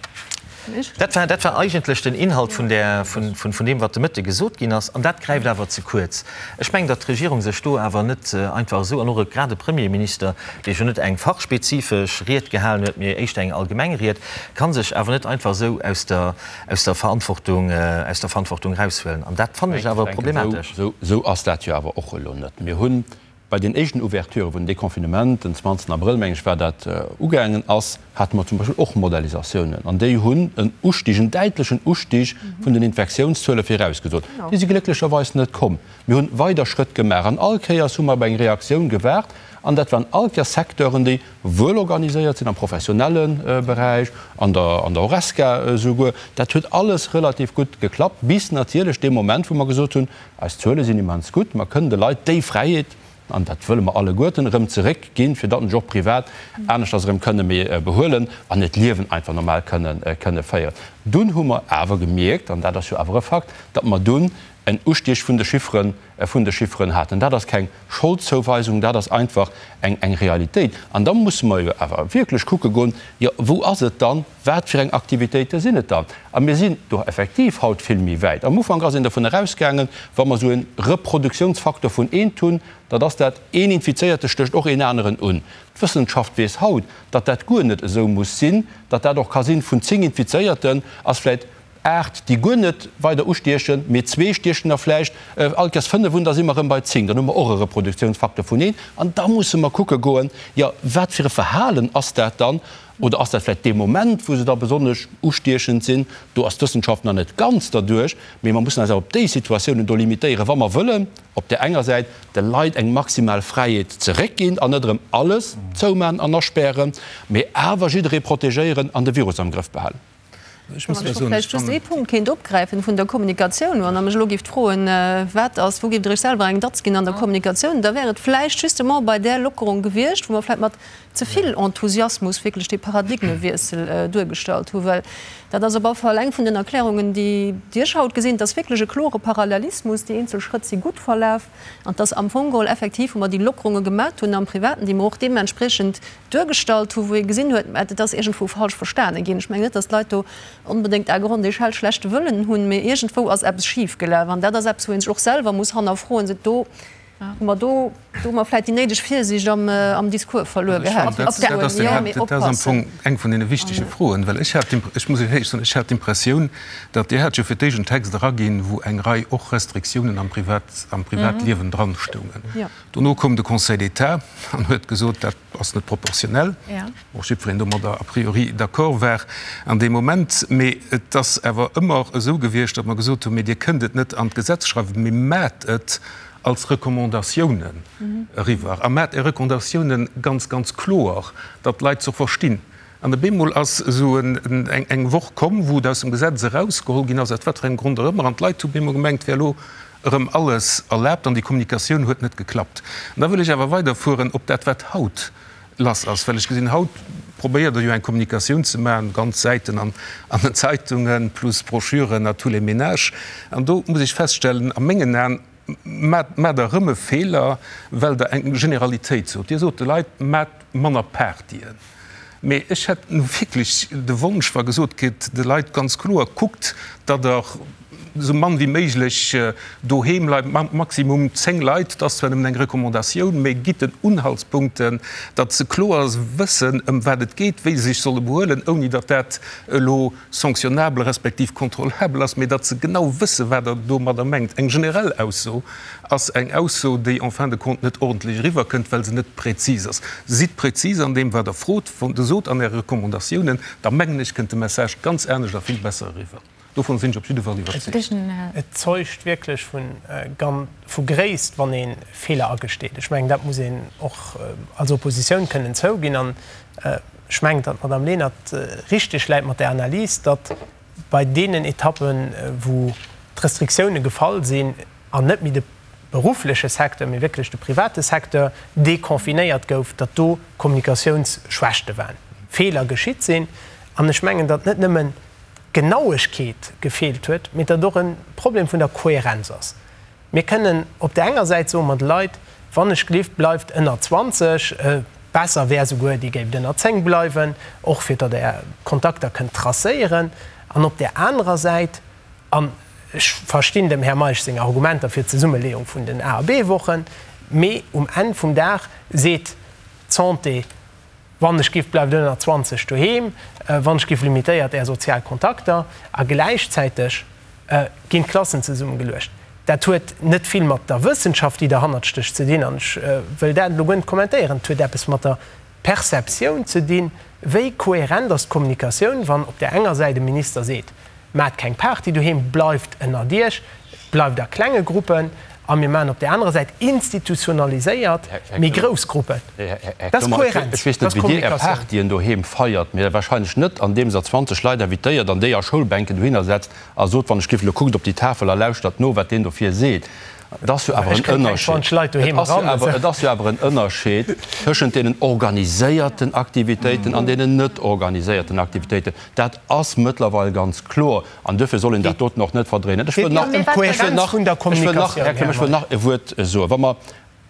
Dat war, dat war eigentlech den Inhalt vun där, vun, vun deem, wat de Mëtte gesot ginn ass. An dat gräift awer ze kuerz. Ech mengen, datt d'Regierung sech do awer net einfach esou, an och grad e Premierminister, dee jo net eng fachspezifesch Ried gehalen huet, mee éischter eng allgemeng Ried, ka sech awer net einfach esou aus der, aus der Verantwortung, aus der Verantwortung eraushuelen. An dat fannen ech awer problematesch. Esou ass dat jo awer och elo net. Mir hunn bei den éischten Ouverturë wou den Deconfinement, den 20 Abrëll, meng ech war dat, ugaangen ass, hate mer zum Beispill och Modellisatiounen an déi hunn en Ustig, en däitlechen Ustig vun den Infektiounszuele virausgesot. Déi si glécklecherweis net komm. Mir hunn weider Schrëtt gemaach an all Kéiers hu mer op eng Reaktioun gewaart an dat waren all Kéiers Secteuren, déi wuel organiséiert sinn am professionelle Beräich, an der an der Horesca esouguer. Dat huet alles relativ gutt geklappt, bis natierlech dee Moment, wou mer gesot hunn, Eis Zuele sinn immens gutt, mer kënnen de Leit déi Fräiheet, an dat wëlle mer alleguerten, erëm zeréckginn, fir datt se sech och privat aneschters erëm kënne méi behuelen an hiert Liewen einfach normal kënne kënne féieren. Dunn hu mer awer gemierkt, an dat ass jo awer e Fakt, datt mer dunn en Ustieg vun de Chifferen, vun de Chifferen haten. Dat ass keng Scholdzouweisung, dat ass einfach eng eng Realitéit. An da musse mer jo awer wierklech kucke goen, jo wou ass et dann, wat fir eng Aktivitéite sinn et dann? A mir sinn do effektiv haut vill méi wäit. Am Ufank ass een dovun erausgaangen, wa mer esou e Reproduktionsfaktor vun eent hunn, datt ass dat, een Infizéierte stécht och een aneren un. D'Wëssenschaft weess haut, datt dat guer net esou muss sinn, datt dat och ka sinn, vun 10 Infizéierten ass vläicht 8, déi guer net weider ustiechen, mee zwee stiechen der vläicht all Kéiers 5 un, da si mer erëm bei 10, dann hu mer och e Reproduktionsfaktor vun een. An da musse mer kucke goen, jo, wat fir e Verhalen ass dat dann? Oder ass dat vläicht dee Moment, wou se da besonnesch ustiechend sinn? Do ass d'Wëssenschaft nach net ganz derduerch, mee mer mussen eis awer op déi Situatiounen do limitéieren, wa mer wëllen op där enger Säit de Leit eng maximal Fräiheet zeréckginn an net erëm alles zouman an aspären, mee awer jidderee protegéieren an de Virus am Grëff behalen. Ech muss Wann ech vläicht just ee Punkt kéint opgräifen vun der Kommunikatioun, wann Der mech elo géift froen, wat ass, wou géift Der Iech selwer eng Datz ginn an der Kommunikatioun, da wär et vläicht justement bei där Lockerung gewiescht, wou mer vläicht mat ze vill Enthusiasmus wierklech dee Paradigmewiessel duergestallt hunn. Well dat ass op alle Fall eng vun den Erklärungen, déi ech haut gesinn, et ass wierklech e klore Parallelismus, déi eenzel Schrëtt si gutt verlaf an et ass am Fong geholl effektiv, wou mer déi Lockerunge gemat hunn am Privaten, déi mer och deementspriechend duergestallt hu wou ee gesinn huet, mä et ass iergendwou falsch verstane ginn. Ech mengen net, datt d'Leit do onbedéngt à grande échelle schlechte Wëllen hunn, mee iergendwou ass eppes schifgelaf an dat ass eppes, wou ee sech och selwer muss hannerfroen, sot, do hu mer do hu mer vläicht déi néideg Virsiicht am am Discours verluer gehat. Dat ass am Fong eng vun deene wichtege Froen, well ech hat, ech muss Iech éierlech soen, ech hat d'Impressioun, datt Dir hat jo fir d'éischt en Text eraginn, wou eng Rei och Restriktiounen am Privat, am Privatliewen dranstoungen. Dono koum de Conseil d'État an huet gesot, dat ass net proportionell, och jiddwereen domadder a priori d'accord war an deem Moment. Mee et ass awer ëmmer esou gewiescht, datt mer gesot hunn, mee Dir kënnt et net an d'Gesetz schreiwen, mee maacht et als Recommandatiounen eriwwer a maacht Är Recommandatiounen ganz, ganz kloer, datt d'Leit se och verstinn. An op eemol ass esou eng Woch komm, wou et aus dem Gesetz erausgeholl ginn ass, aus wat fir engem Grond och ëmmer, an d'Leit hu op eemol gemengt, et wär elo erëm alles erlaabt, an déi Kommunikatioun huet net geklappt. An da wëll ech awer weiderfueren op dat, wat haut lass ass, well ech gesinn, haut probéiert Der jo eng Kommunikatioun ze maachen, ganz Säiten an den Zeitungen, plus Broschüren à tous les ménages. An do muss ech feststellen, a mengen Aen maacht Der erëm e Feeler, well Der eng Generalitéit sot. Dir sot de Leit, Maacht manner Partyen. Mee ech hätt nu wierklech de Wonsch, wa gesot gëtt de Leit ganz kloer, Kuckt, datt Der esou mann wéi méiglech doheem bleift, maximum 10 Leit, dat ass zwar nëmmen eng Recommandatioun, mee gitt den Unhaltspunkten, datt se kloer wëssen, ëm wat et geet, wéi se sech solle behuelen, ouni datt dat elo sanctionnabel respektiv kontrollabel ass, mee datt se genau wëssen, wat Der domadder mengt. Eng generell Ausso ass eng Ausso, déi en fin de compte net ordentlech eriwwerkënnt, well se net präzis ass. Sidd präzis an deem, wat Der frot, sot an Äre Recommandatiounen, da mengen ech, kënnt de Message ganz anescht a vill besser eriwwer. Dovun sinn ech op jidde Fall iwwerzeegt. Et zeugt wierklech vu Gréisst, wann ee Feeler agesteet. Ech mengen, dat muss een och als Oppositioun kënnen zouginn. An ech mengen, datt d'Madame Lenert richteg läit mat där Analys, datt bei deenen Etappen, wou d'Restriktioune gefall sinn an net méi de beruffleche Secteur, mee wierklech de private Secteur deconfinéiert gouf, datt do Kommunikatiounsschwächte waren, Feeler geschitt sinn. An ech mengen, datt net nëmmen d'Genauegkeet gefeelt huet, mee datt och e Problem vun der Kohärenz ass. Mir kënnen op där enger Säit soe mer de Leit, Wann ech gelift, bleift ënner 20, besser wär souguer, Dir géift ënner 10 bleiwen, och fir datt Der Kontakter kënnt tracéieren. An op där anerer Säit, an ech verstinn dem Här Meisch seng Argumenter fir d'Zesummeleeung vun den A a B-Wochen, mee um Enn vum Dag seet d'Santé, Wann ech giff, bleift ënner 20 doheem. Wann ech giff, limitéiert Är sozial Kontakter. A gläichzäiteg ginn d'Klassen zesummegeluecht. Dat huet net vill mat der Wëssenschaft, déi derhannert stécht, ze dinn. An ech wëll dat elo guer net kommentéieren. Et huet eppes mat der Perceptioun ze dinn, Wéi kohärent ass d'Kommunikatioun, wann op där enger Säit e Minister seet, Maacht keng Party doheem, bleift ënnert Iech, bleift a klenge Gruppen, a mir maachen op där anerer Säit institutionaliséiert méi grouss Gruppen. Dat ass Kohärenz, Ech weess net, wéi Dir Är Partyen doheem feiert, mee wahrscheinlech net, andeems Der 20 Leit invitéiert an déi a Schoulbänken dohinner setzt a sot, Wann ech giff elo, kuckt op déi Tafel a lauschtert no, wat deen dofir seet. Et ass jo awer en Ënnerscheed, et ass jo awer en Ënnerscheed tëschent deenen organiséierten Aktivitéiten an deenen net organiséierten Aktivitéiten. Dat ass mëttlerweil ganz kloer an duerfir soll een dat doten och net verdréinen. Ech wëll nach, ech wëll nach, ech wëll nach, Här Clement, ech wëll nach e Wuert soen. Wa mer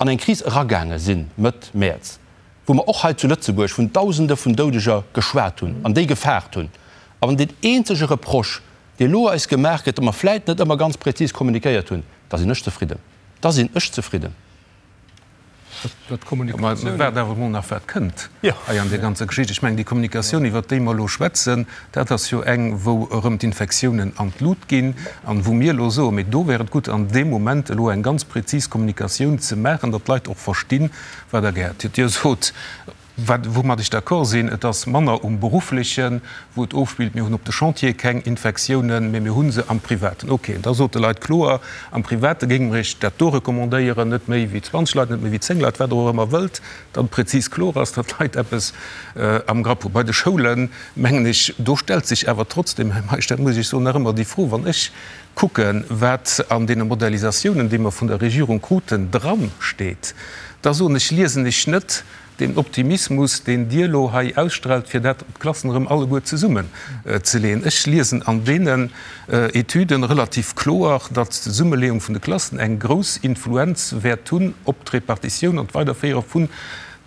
an eng Kris eragaange sinn Mëtt Mäerz, wou mer och hei zu Lëtzebuerg vun Dausende vun Doudeger geschwat hunn an déi gefaart hunn, a wann deen eenzege Reproche, dee elo eis gemaach gëtt, datt mer vläit net ëmmer ganz prezis kommunikéiert hunn, da sinn ech zefridden. Da sinn ech zefridden. Mä waart awer emol nach, wat kënnt hei an där ganzer Geschicht. Ech mengen, déi Kommunikatioun, iwwert déi mer elo schwätzen, dat ass jo eng, wou erëm d'Infektiounen an d'Lut ginn an wou mir elo soen, mee do wär et gutt, an deem Moment elo eng ganz prezis Kommunikatioun ze maachen, datt d'Leit och verstinn, wat Der gär. Dir sot, Wat, woumat ech d'accord sinn, et ass manner um Berufflechen, wou et ofspillt. Mir hunn op de Chantiere keng Infektiounen, mä mir hu se am Privaten. Okay, da sot de Leit kloer, am Private géinge mer Iech dat do recommandéieren, net méi wéi 20 Leit, net méi wéi 10 Leit, wat Der och ëmmer wëllt, datt et prezis kloer ass, datt d'Leit eppes am Grapp hunn. Bei de Schoulen, mengen ech, do stellt sech awer trotzdem, Här Meisch, dat muss ech soen, nach ëmmer déi Fro, wann ech kucken, wat an deene Modellisatiounen, déi mer vun der Regierung kruten, dransteet, da soen ech, liesen ech net, Deen Optimismus, deen Dir elo hei ausstrahlt, fir dat d'Klassen erëm alleguer zesummen ze leeën, ech liesen an deenen Etüden relativ kloer, datt d'Zesummeleeung vun de Klassen eng grouss Influenz wäert hunn op d'Repartitioun an d'Weiderféiere vun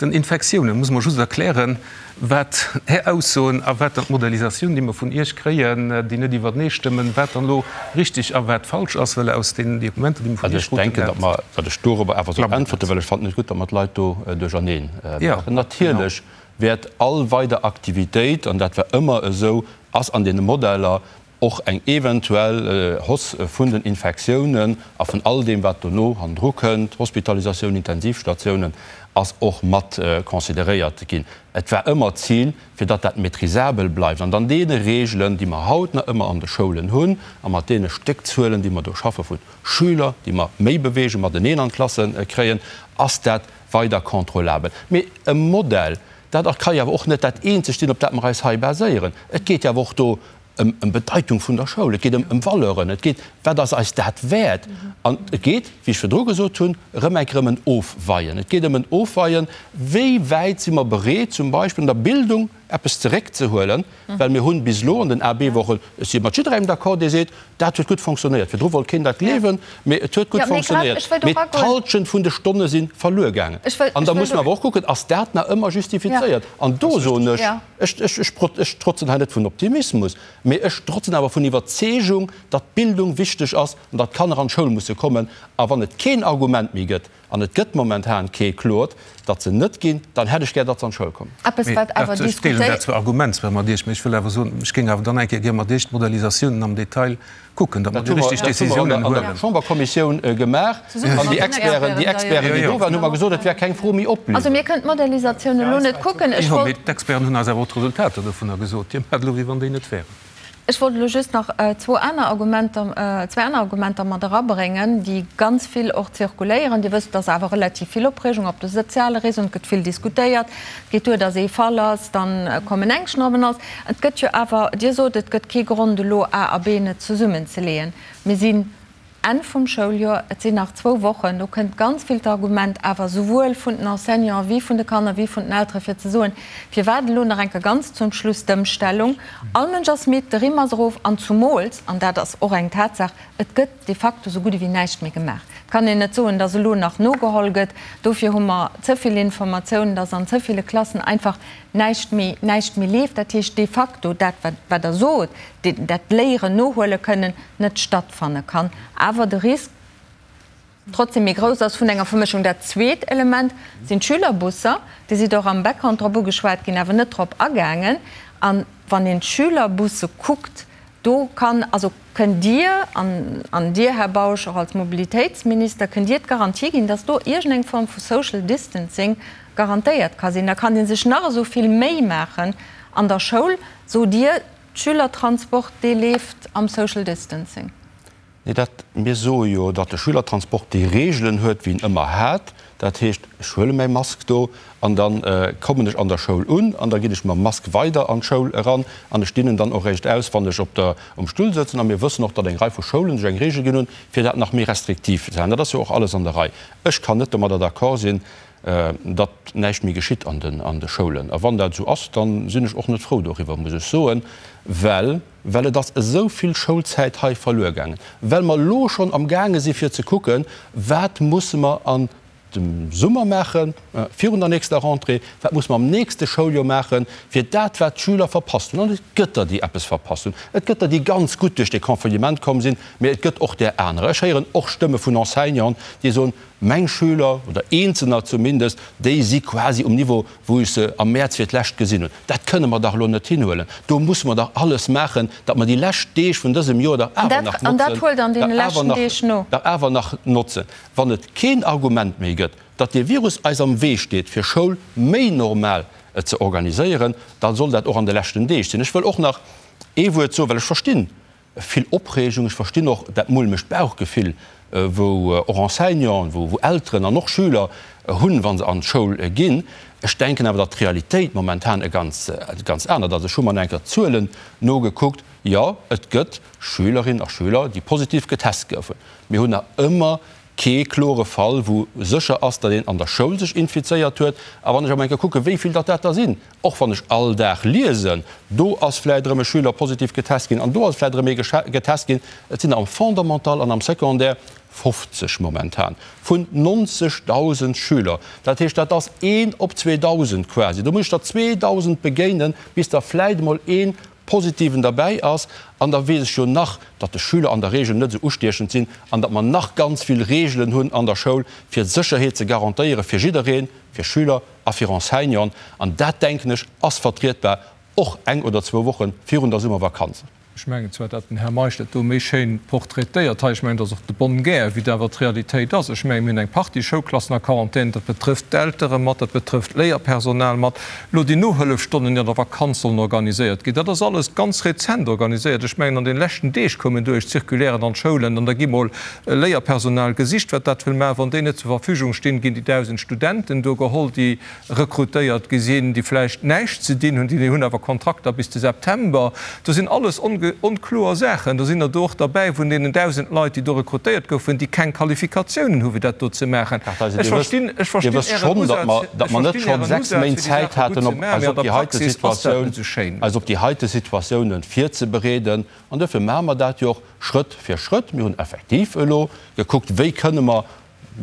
den Infektiounen. Muss mer just erklären, wat Är Aussoen a wat dann d'Modellisatioun, déi mer vun Iech kréien, déi net iwwertenee stëmmen, wat dann elo richtig a wat falsch ass, well aus deenen Dokumenter, déi mer vun Iech kruten, dat. Also ech denken, datt mer, datt ech dorobber awer soll äntwerte, well ech fannen et gutt, datt mer d'Leit do duercherneen maachen. Natierlech wäert all weider Aktivitéit, an dat war ëmmer esou, ass an deene Modeller och eng eventuell Hausse vun den Infektiounen a vun all deem, wat dono hannendru kënnt, Hospitalisatioun, Intensivstatiounen, ass och mat consideréiert ginn. Et war ëmmer d'Zil, fir datt dat maîtrisabel bleift an an deene Regeln, déi mer haut nach ëmmer an de Schoulen hunn a mat deene Stéckzuelen, déi mer do schaffe vu Schüler, déi mer méi beweegen, mateneen an d'Klasse kréien, ass dat weider contrôlabel. Mee e Modell, dat ka jo awer och net dat eenzegt sinn, op dat mer eis hei baséieren. Et geet jo awer och do ëm Bedeitung vun der Schoul, et geet ëm Valeuren, et geet, wat ass eis dat wäert? An et geet, wéi ech virdru gesot hunn, erëm eng Kéier ëm en Ofweien. Et geet ëm en Ofweien, wéi wäit si mer bereet, zum Beispill an der Bildung eppes zeréckzehuelen, well mir hunn bis elo an den AB-Wochen, ech si mat jidderengem d'accord, dee seet, dat huet gutt fonctionnéiert. Virdru wollt keen dat gleewen, mee et huet gutt fonctionnéiert. Mee d'Halschent vun de Stonne si verluer gaangen. An da muss mer awer och kucken, ass dat nach ëmmer justifizéiert? An do soen ech, Ech trotzen hei net vun Optimismus, mee ech trotzen awer vun Iwwerzeegung, datt Bildung wichteg ass an datt d'Kanner an d'Schoul musse kommen. A wann et keen Argument méi gëtt, an et gëtt momentan kee kloert, datt se net ginn, dann hätt ech gär, datt se an d'Schoul kommen. Eppes, wat awer Ech deelen dat zwar Argument zwar mat Iech, mee ech wëll awer soen, ech géing awer dann eng Kéier gär mat Iech d'Modellisatiounen am Detail kucken, datt mer déi richteg Décisiounen huelen. Dat hu mer an der Chamberkommissioun gemaach an déi Experten, déi Experten, déi do waren, hu mer gesot, et wär keng Fro méi op bliwwen. Also mir kënnen d'Modellisatioun elo net kucken. Ech wollt. Jo, mee d'Experten hunn eis awer och d'Resultater dovunner gesot. Dir maacht elo, wéi wann déi net wären. Ech wollt elo just nach zwou aner Argumenter, zwee aner Argumenter mat erabréngen, déi ganz vill och zirkuléieren. Dir wësst, et ass awer relativ vill Opreegung op de soziale Réseauen, et gëtt vill diskutéiert. Et geet duer, datt ee Fall ass, dann kommen Ängschten op en alles. Et gëtt jo awer, Dir sot, et gëtt kee Grond elo A a B net zesummenzeleeën. Mir sinn. Enn vum Schouljoer, et sinn nach zwou Wochen, do kënnt ganz vill d'Argument awer souwuel vun den Enseignanten wéi vun de Kanner wéi vun den Eltere fir ze soen, firwat elo nach eng Kéier ganz zum Schluss d'Ëmstellung? All Mënsch ass midd, de Rimm ass erof an zumools, an dat ass och eng Tatsaach, et gëtt de facto sou gutt ewéi näischt méi gemaach. Et kann een net soen, datt elo nach nogeholl gëtt. Dofir hu mer ze vill Informatiounen, datt an ze ville Klassen einfach näischt méi, näischt méi leeft. Dat heescht de facto dat, wat Der sot, dat Léieren nohuele kënnen, net stattfanne kann, awer de Risk trotzdem méi grouss ass vun enger Vermëschung. Dat zweet Element sinn d'Schülerbusser. Dir sidd och am Background drop ugeschwat ginn, awer net drop agaangen. A wann een d'Schülerbusse kuckt, do kann, also kënnt Dir, an, an Dir, Här Bausch, och als Mobilitéitsminister, kënnt Dir d'Garantie ginn, dass do iergendeng Form vu Social Distancing garantéiert ka sinn? Da kann ee sech nach esou vill Méi maachen an der Schoul, sot Dir, Schülertransport, dee leeft am Social Distancing. Nee, dat, mir soe jo, datt de Schülertransport déi Reegelen huet, wéi en ëmmer hat. Dat heescht, ech huele mäi Mask do an da kommen ech an der Schoul un an da ginn ech mam Mask weider an d'Schoul eran an ech dinn en dann och eréischt aus, wann ech op der, um Stull sëtzen. A mir wëssen och, datt eng Rei vu Schoulen sech eng Reegel ginn hunn, fir dat nach méi restriktiv ze halen. Dat ass jo och alles an der Rei. Ech kann net domadder d'accord sinn, datt näischt méi geschitt an de Schoulen. A wann dat esou ass, da sinn ech och net frou doriwwer, muss ech soen, well, well et ass esou vill Schoulzäit hei verluer gaangen, well mer elo schonn amgaange si fir ze kucken, wat musse mer an dem Summer maachen, virun der nächster Rentrée, wat musse mer am nächste Schouljoer maachen, fir dat, wat d'Schüler verpasst hunn. An et gëtt der, déi eppes verpasst hunn, et gëtt der, déi ganz gutt duerch de Confinement komm sinn, mä et gëtt och där anerer. Ech héieren och Stëmme vun Enseignanten, déi soen, Meng Schüler, oder eenzelner zumindest, déi si quasi um Niveau, wou ech se am Mäerz fir d'lescht gesinn hunn. Dat kënne mer dach elo net hinhuelen. Do musse mer dach alles maachen, datt mer déi lescht Deeg vun dësem Joer dach awer nach notzen, dach awer nach notzen. Wann et keen Argument méi gëtt, datt dee Virus eis am Wee steet, fir Schoul méi normal ze organiséieren, da soll dat och an de leschten Deeg sinn. Ech wëll och nach ee Wuert soen, well ech verstinn, Vill Opreegung. Ech verstinn och dat mulmegt Bauchgefill, wou och Enseignanten, wou Elteren an och Schüler hunn, wa se an d'Schoul ginn. Ech denken awer, datt d'Realitéit momentan e ganz, ganz anert ass. Ech hu mer nach eng Kéier d'Zuelen nogekuckt. Jo, et gëtt Schülerinnen a Schüler, déi positiv getest goufen. Mir hunn nach ëmmer kee klore Fall, wou sécher ass, datt een an der Schoul sech infizéiert huet. A wann ech awer eng Kéier kucken, wéi vill datt dat der sinn, och wann ech all Dag liesen, do ass vläicht erëm e Schüler positiv getest ginn an do ass vläicht erëm ee getest ginn, et sinn der am Fondamental an am Secondaire 50 momentan vun 90.000 Schüler. Dat heescht, dat ass een op 2.000 quasi. Do muss ech der 2.000 begéinen, bis der vläicht emol ee Positiven derbäi ass, an da weess ech jo nach, datt de Schüler an der Regel net esou ustiechend sinn an datt mer nach ganz vill Regelen hunn an der Schoul, fir d'Sécherheet ze garantéiere fir jiddereen, fir Schüler a fir Enseignanten. An dat, denken ech, ass vertrietbar, och eng oder zwou Woche virun der Summervakanz. Ech mengen zwar, datt den Här Meisch dat do méi schéin portraitéiert hei, ech mengen, dat ass och de bonne guerre, wéi dat awer d'Realitéit ass. Ech mengen, mir hunn eng Partie Schoulklassen a Quarantän, dat betrëfft d'Eltere mat, dat betrëfft d'Léierpersonal mat. Elo déi Nohëllefstonnen, déi an der Vakanz sollen organiséiert ginn, dat ass alles ganz rezent organiséiert. Ech mengen, an den leschten Deeg koumen do éischt Circulairen an d'Schoulen an da gi mol Léierpersonal gesicht, wat dat wëll maachen. Wann déi net zur Verfügung stinn, ginn déi 1.000 Studenten do geholl, déi rekrutéiert gi sinn, déi vläicht näischt ze dinn hunn, déi hunn awer Kontrakter bis de September. Do sinn alles onkloer Saachen. Do sinn der do och derbäi vun deenen 1.000 Leit, déi do rekrutéiert goufen, déi keng Qualifikatiounen hu fir dat do ze maachen. Ech verstinn, ech verstinn Ären Usaz, ech verstinn Ären Usaz, fir déi Saache gutt ze maachen, mee an der Praxis ass dat net esou schéin. Eis op déi heite Situatiounen virzebereeden. An duerfir maache mer dat jo och Schrëtt fir Schrëtt. Mir hunn effektiv elo gekuckt, wéi kënne mer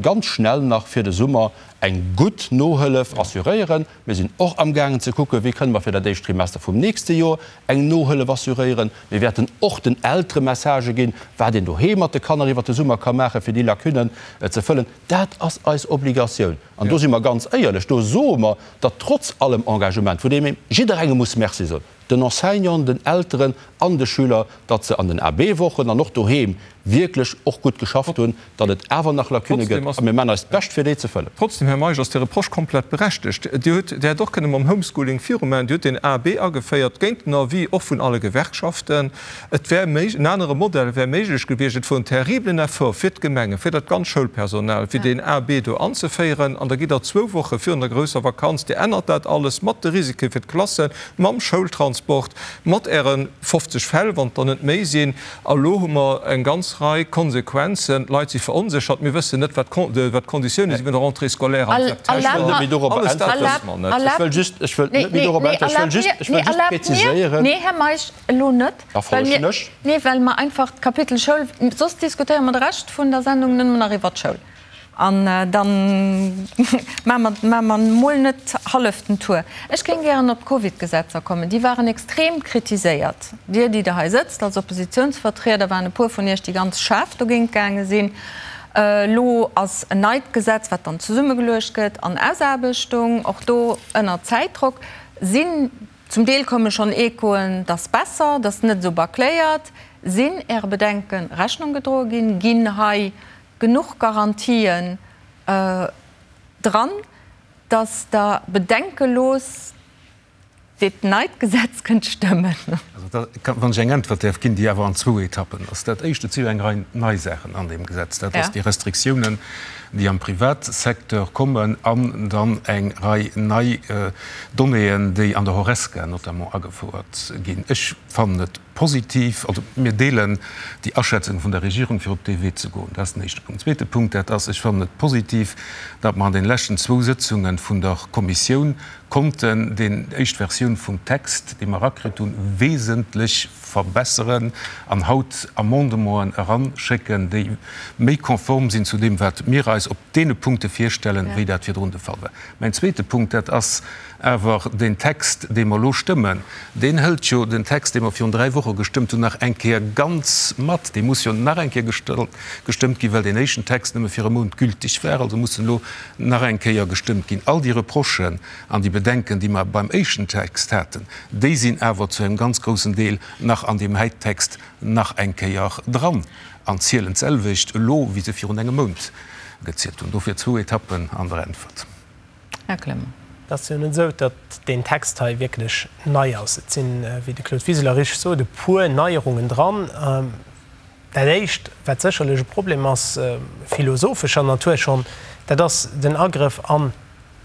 ganz schnell nach fir de Summer eng gutt Nohëllef assuréieren. Mir sinn och amgaangen ze kucken, wéi kënne mer fir dat éischt Trimester vum nächste Joer eng Nohëllef assuréieren. Mir wäerten och den Eltere Messagë ginn, wat een doheem mat de Kanner iwwert de Summer ka maachen, fir déi Lacunnen ze fëllen. Dat ass eis Obligatioun. An do si mer ganz éierlech, do soe mer, datt trotz allem Engagement, vun deem ee jidderengem muss Merci soen, den Enseignanten, den Elteren an de Schüler, datt se an den AB-Wochen an och doheem wierklech och gutt geschafft hunn, datt et awer nach Lacunne gëtt a mir maachen eist Bescht fir déi ze fëllen. Trotzdem, Här Meisch, ass dee Reproche komplett berechtegt. Dir hutt, Dir hätt och kënne mam Homeschooling virumaachen. Dir hutt den AB ageféiert, géint den Avis och vun alle Gewerkschaften. Et wär méig, en anere Modell wär méiglech gewiescht. Et wor en terriblen Effort fir d'Gemengen, fir dat ganz Schoulpersonal, fir deen AB do anzeféieren. An da gitt Der zwou Woche virun der grousser Vakanz, Dir ännert dat alles mat de Risike fir d'Klassen, mam Schoultransport, mat Äre 50. 50 Fäll, wann et der net méi sinn. A lo hu mer eng ganz Rei Konsequenzen. D'Leit si veronséchert. Mir wëssen net, wat d'Konditioune si vun der Rentrée scolaire am September. Alles dat wësse mer net. Ech wëll just, ech wëll net méi dorop äntweren. Ech wëll just, ech wëll just präziséieren. Nee, Här Meisch, elo net. Da folegen ech. Nee, well mer einfach d'Kapitel Schoul, soss diskutéiere mer de Rescht vun der Sendung nëmmen nach iwwert d'Schoul. An da maache mer mol net hallef den Tour. Ech géing gären op d'Covidgesetzer kommen. Déi waren extrem kritiséiert. Dir, déi Der hei sëtzt als Oppositionsvertrieder, waren e puer vun Iech, déi ganz schaarf dogéint gaange sinn. Elo ass en neit Gesetz, wat dann zesummegeluecht gëtt, an Ausaarbechtung, och do ënner Zäitdrock. Sinn Zum Deel komme schonn Echoen, dass besser, dass net esou bâcléiert. Sinn Äre Bedenke Rechnung gedroe ginn? Ginn hei genuch Garantien dran, dass Der bedenkelos dat neit Gesetz kënnt stëmmen? Also da, wann ech eng Äntwert däerf ginn, déi awer an zwou Etappen ass. Dat Éischt, et si jo eng Rei nei Saachen an deem Gesetz. Dat ass déi Restriktiounen, déi am Privatsecteur kommen an dann eng Rei nei Donnéeën, déi an der Horesca notamment agefouert ginn. Ech fannen et positiv, also mir deelen déi Aschätzung vun der Regierung, fir op dee Wee ze goen. Dat ass den éischte Punkt. Zweete Punkt, dat ass, ech fannen et positiv, datt mer an den leschten zwou Sëtzunge vun der Kommissioun konnten déi éischt Versioun vum Text, dee mer erakritt hunn, wesentlech verbesseren an haut Amendementen eranschécken, déi méi konform sinn zu deem, wat mir eis op deene Punkte virstellen, wéi dat virdrun de Fall war. Mäin zweete Punkt, dat ass awer deen Text, dee mer elo stëmmen, deen hëlt jo den Text, dee mer virun dräi Woche gestëmmt hunn, nach eng Kéier ganz mat. Dee muss jo nach eng Kéier gestëmmt ginn, well deen éischten Text nëmme fir e Mount gültig war. Also muss en elo nach eng Kéier gestëmmt ginn. All déi Reprochen an déi Bedenken, déi mer beim éischten Text haten, déi sinn awer zu engem ganz groussen Deel nach an deem hei Text nach eng Kéier dran an zielen d'selwecht elo, wéi se virun engem Mount gezielt hunn. Dofir zwou Etappen an der Äntwert. Här Clement. Et ass jo net esou, datt deen Text hei wierklech nei ass. Et sinn, wéi de Claude Wiseler richteg sot, e puer Neierungen dran. Dat Éischt, wat sécherlech e Problem ass, philosophescher Natur schonn, dat ass den Agrëff an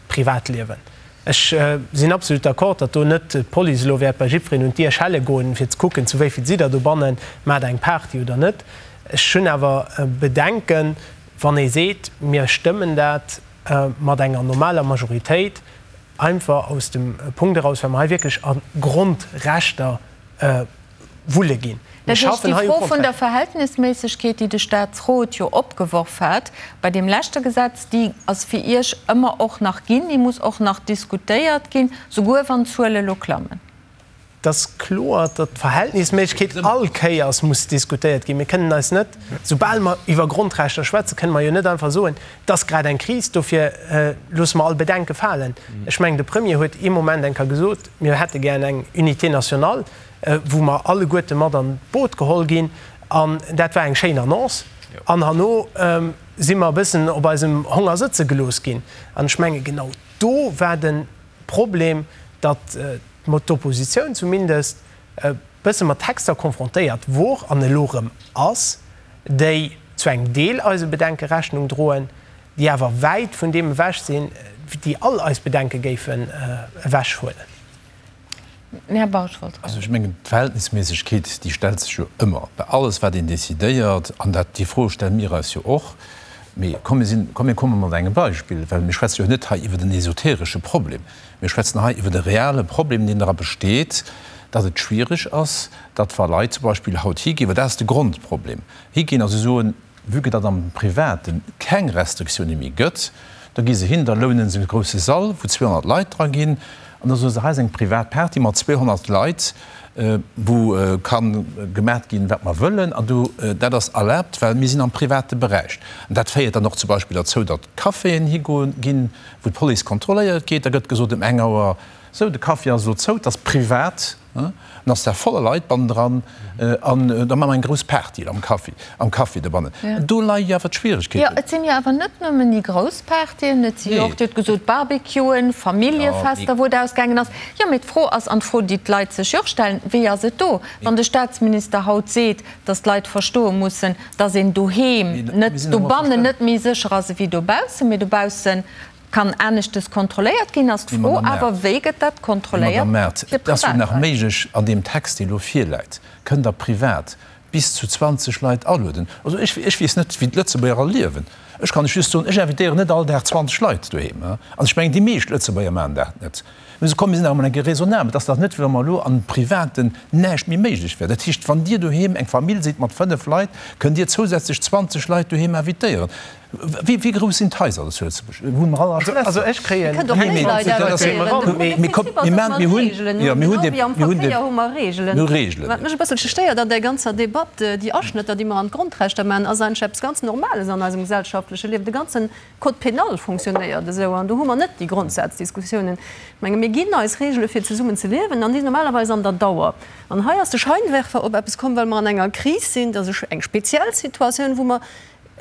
d'Privatliewen. Ech sinn absolut d'accord, datt do net d'Police elo wäert bei jiddwereen un d'Dier schelle goen, fir ze kucken, zu wéi vill sidd Der dobannen, maacht Der eng Party oder net. Ech hunn awer Bedenken, wann ee seet, mir stëmmen dat mat enger normaler Majoritéit, einfach aus dem Punkt eraus, well mer hei wierklech a Grondrechter wulle ginn. Mir schaffen hei u Kontrakt. Dat heescht, déi Fro vun der Verhältnisméissegkeet, déi de Statsrot jo opgeworf hat bei deem leschte Gesetz, déi ass fir Iech ëmmer och nach ginn, déi muss och nach diskutéiert ginn, souguer wann d'Zuele lo klammen. Et ass kloer, datt d'Verhältnisméissegkeet all Kéiers muss diskutéiert ginn. Mir kënnen eis net, soubal mer iwwer Grondrechter schwätzen, kënne mer jo net einfach soen, et ass grad eng Kris, dofir loosse mer all Bedenke falen. Ech mengen, de Premier huet ee Moment eng Kéier gesot, mir hätte gär eng Unité nationale. wou mer alleguerte mat an d'Boot geholl ginn, an dat war eng schéin Annonce. An herno si mer e bëssen op eisem Honger sëtze gelooss ginn. An ech menge genau do war de Problem, datt d'Oppositioun zumindest e bësse mat Texter konfrontéiert wor an elo erëm ass, déi zu engem Deel eise Bedenke Rechnung droen, déi awer wäit vun deem ewech sinn, déi all eis Bedenke géifen ewechhuelen. Här Bausch wollt Also ech mengen, d'Verhältnisméissegkeet, déi stellt sech jo ëmmer bei alles, wat een decidéiert. An dat, déi Fro stelle mir eis jo och. Mee komm, mir sinn, komm mir komme mat engem Beispill, well mir schwätze jo net hei iwwer en esoteresche Problem. Mir schwätzen hei iwwer e reale Problem, deen dra besteet, datt et schwierig ass, datt wa Leit zum Beispill haut higinn, well dat ass de Grondproblem, higinn a se soen, Vue que datt am Private keng Restriktioune méi gëtt, da gi se hin, da lounen se e grousse Sall, wou 200 Leit dra ginn, an da soe se, hei ass eng privat Party mat 200 Leit, wou ka gemat ginn, wat mer wëllen, an do, dat ass erlaabt, well mir sinn am private Beräich. An dat féiert dann och zum Beispill derzou, datt Caféen higoen ginn, wou d'Police kontrolléiert geet. Da gëtt gesot ëm eng Auer, Sou, de Café ass elo zou, et ass privat. An ass da voller Leit bannendran an da maache mer eng grouss Party am Café, am Café dobannen. Do leie jo awer d'Schwieregkeeten. Jo, et sinn jo awer net nëmmen déi grouss Partyen, et si jo och, Dir hutt gesot, Barbecuen, Familljefester, wou et ausgaangen ass. Jo, mee d'Fro ass, an d'Fro, déi d'Leit sech jo och stellen, Wéi ass et do, wann de Staatsminister haut seet, datt d'Leit verstoe mussen, datt een doheem net, dobannen net méi sécher ass ewéi dobaussen, mee dobaussen. Kann aneschtes kontrolléiert ginn, ass d'Fro awer, wéi gëtt dat kontrolléiert fir Privatleit? Madame Mart, et ass jo nach méiglech, an deem Text, dee elo virläit, kënnt Der privat bis zu 20 Leit alueden. Also ech, ech weess net, wéi d'Lëtzebuerger all liewen. Ech kann lech just soen, ech invitéieren net all Dag 20 Leit doheem. An ech mengen, déi meescht Lëtzebuerger maachen dat net. Mee komm, mir sinn awer emol eng Kéier raisonnabel. Et ass dach net, wéi wa mer elo am Privaten näischt méi méiglech wär. Dat heescht, wann Dir doheem eng Famill sidd mat 5 Leit, kënnt Dir zousätzlech 20 Leit doheem invitéieren. Wéi grouss sinn d'Haiser zu Lëtzebuerg? Wunne mer all a Schlässer? Also ech kréien. Dir kënnt och méi Leit invitéieren. Mee de Prinzip ass, datt mer Reegelen hunn, genau wéi am Verkéier hu mer Reegelen. Wat mech e bësselche stéiert an där ganzer Debatt, déi Aschnëtter, déi mer an d'Grondrechter maachen, ass eigentlech eppes ganz Normales an eisem gesellschaftleche Liewen. De ganze Code pénal fonctionnéiert esou an do hu mer net déi Grondsaazdiskussiounen. Ech menge mir ginn eis Reegele fir zesummen ze liewen an déi sinn normalerweis an der Dauer. An hei ass de Scheinwerfer op eppes komm, well mer an enger Kris sinn, dat ass eng speziell Situatioun, wou mer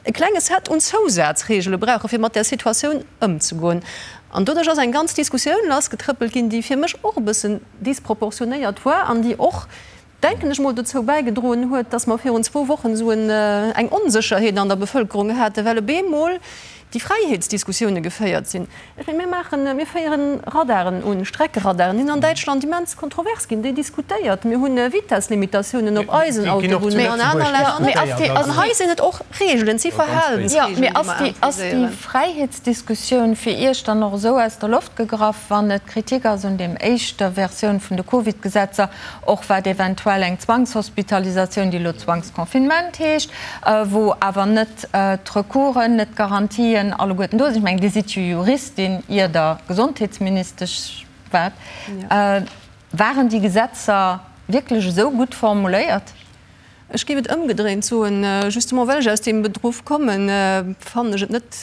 e klenge Set un Zousazreegele brauchen, fir mat där Situatioun ëmzegoen. An doduerch ass eng ganz Diskussioun lassgetrëppelt ginn, déi fir mech och e bëssen disproportionéiert war an déi och, denken ech mol, dozou bäigedroen huet, dass mer virun zwou Wochen esou eng Onsécherheet an der Bevëlkerung haten, well op eemol déi Fräiheetsdiskussioune geféiert sinn. Ech mengen, mir maachen, mir féieren Radaren un, Streckeradaren, déi sinn an Däitschland immens kontrovers ginn, déi diskutéiert. Mir hunn Vitesslimitatiounen op eisen Autobunnen an aner Länner net. An hei sinn et och Reegelen, et si Verhalensreegelen, déi mer imposéieren. Ass déi Fräiheetsdiskussioun fir Iech dann och esou aus der Loft gegraff, wann et Kritik ass un deem éischter Versioun vun de Covid-Gesetzer, och wat eventuell eng Zwangshospitalisatioun, déi elo Zwangsconfinement heescht, wou awer net d'Recoursen, net d'Garantien alleguerten do sinn. Ech mengen, Dir sidd jo Juristin, ier Der Gesondheetsministesch waart. Waren déi Gesetzer wierklech esou gutt formuléiert? Ech géif et ëmgedréint soen, justement well ech aus deem Beruff kommen, fannen ech et net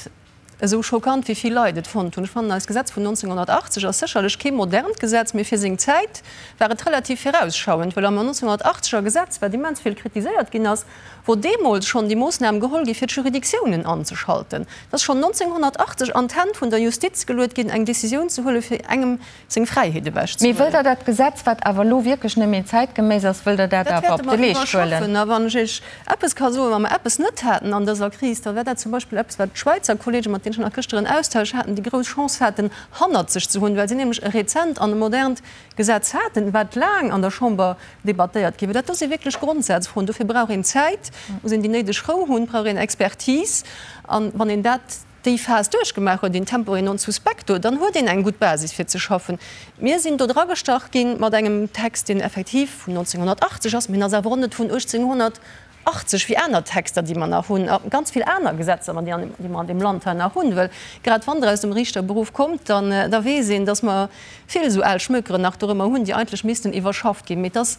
esou schockant wéi vill Leit et fonnt hunn. Ech fannen, eist Gesetz vun 1980 ass sécherlech kee modernt Gesetz, mee fir seng Zäit war et relativ virausschauend, well am 1980 er Gesetz, wat immens vill kritiséiert ginn ass, wor deemools schonn déi Moossnam geholl gi fir d'Juridictiounen anzeschalten. Et ass schonn 1980 an d'Hänn vun der Justiz geluet ginn, eng Décisioun ze huelen, fir engem seng Fräiheet ewech ze Mee wëllt Der dat Gesetz, wat awer elo wierklech net méi zäitgeméiss ass, wëllt Der dat Dat awer wäerte op de mer Leescht huelen? iwwerschaffen. A wann ech Iech eppes ka soen, wa mer eppes net haten an dëser Kris, da wär dat zum Beispill eppes, wat d'Schwäizer Kollegen, mat deenen ech nach gëschter en Austausch haten, déi grouss Chance haten, hannert sech ze hunn, well si nämlech e rezent an e modernt Gesetz haten, wat laang an der Chamber debattéiert gi war. Dat do si wierklech Grondsazfroen. Dofir brauch een Zäit, muss een déi néideg Rou hunn, brauch een Expertise. A wann een dat déi Phas duerchgemaach huet, in tempore non suspecto, dann huet een eng gutt Basis fir ze schaffen. Mir sinn do dragestach gi mat engem Text, deen effektiv vun 1980 ass, mee en ass awer och net vun 1880 wéi aner Texter, déi mer nach hunn, a ganz vill aner Gesetzer, déi mer an deem Land hei nach hunn. Well grad wann Der aus dem Riichterberuff kommt, dann da weess een, dass mer vill esou al Schmökeren nach dorëmmer hunn, déi eigentlech missten iwwerschafft ginn. Mee et ass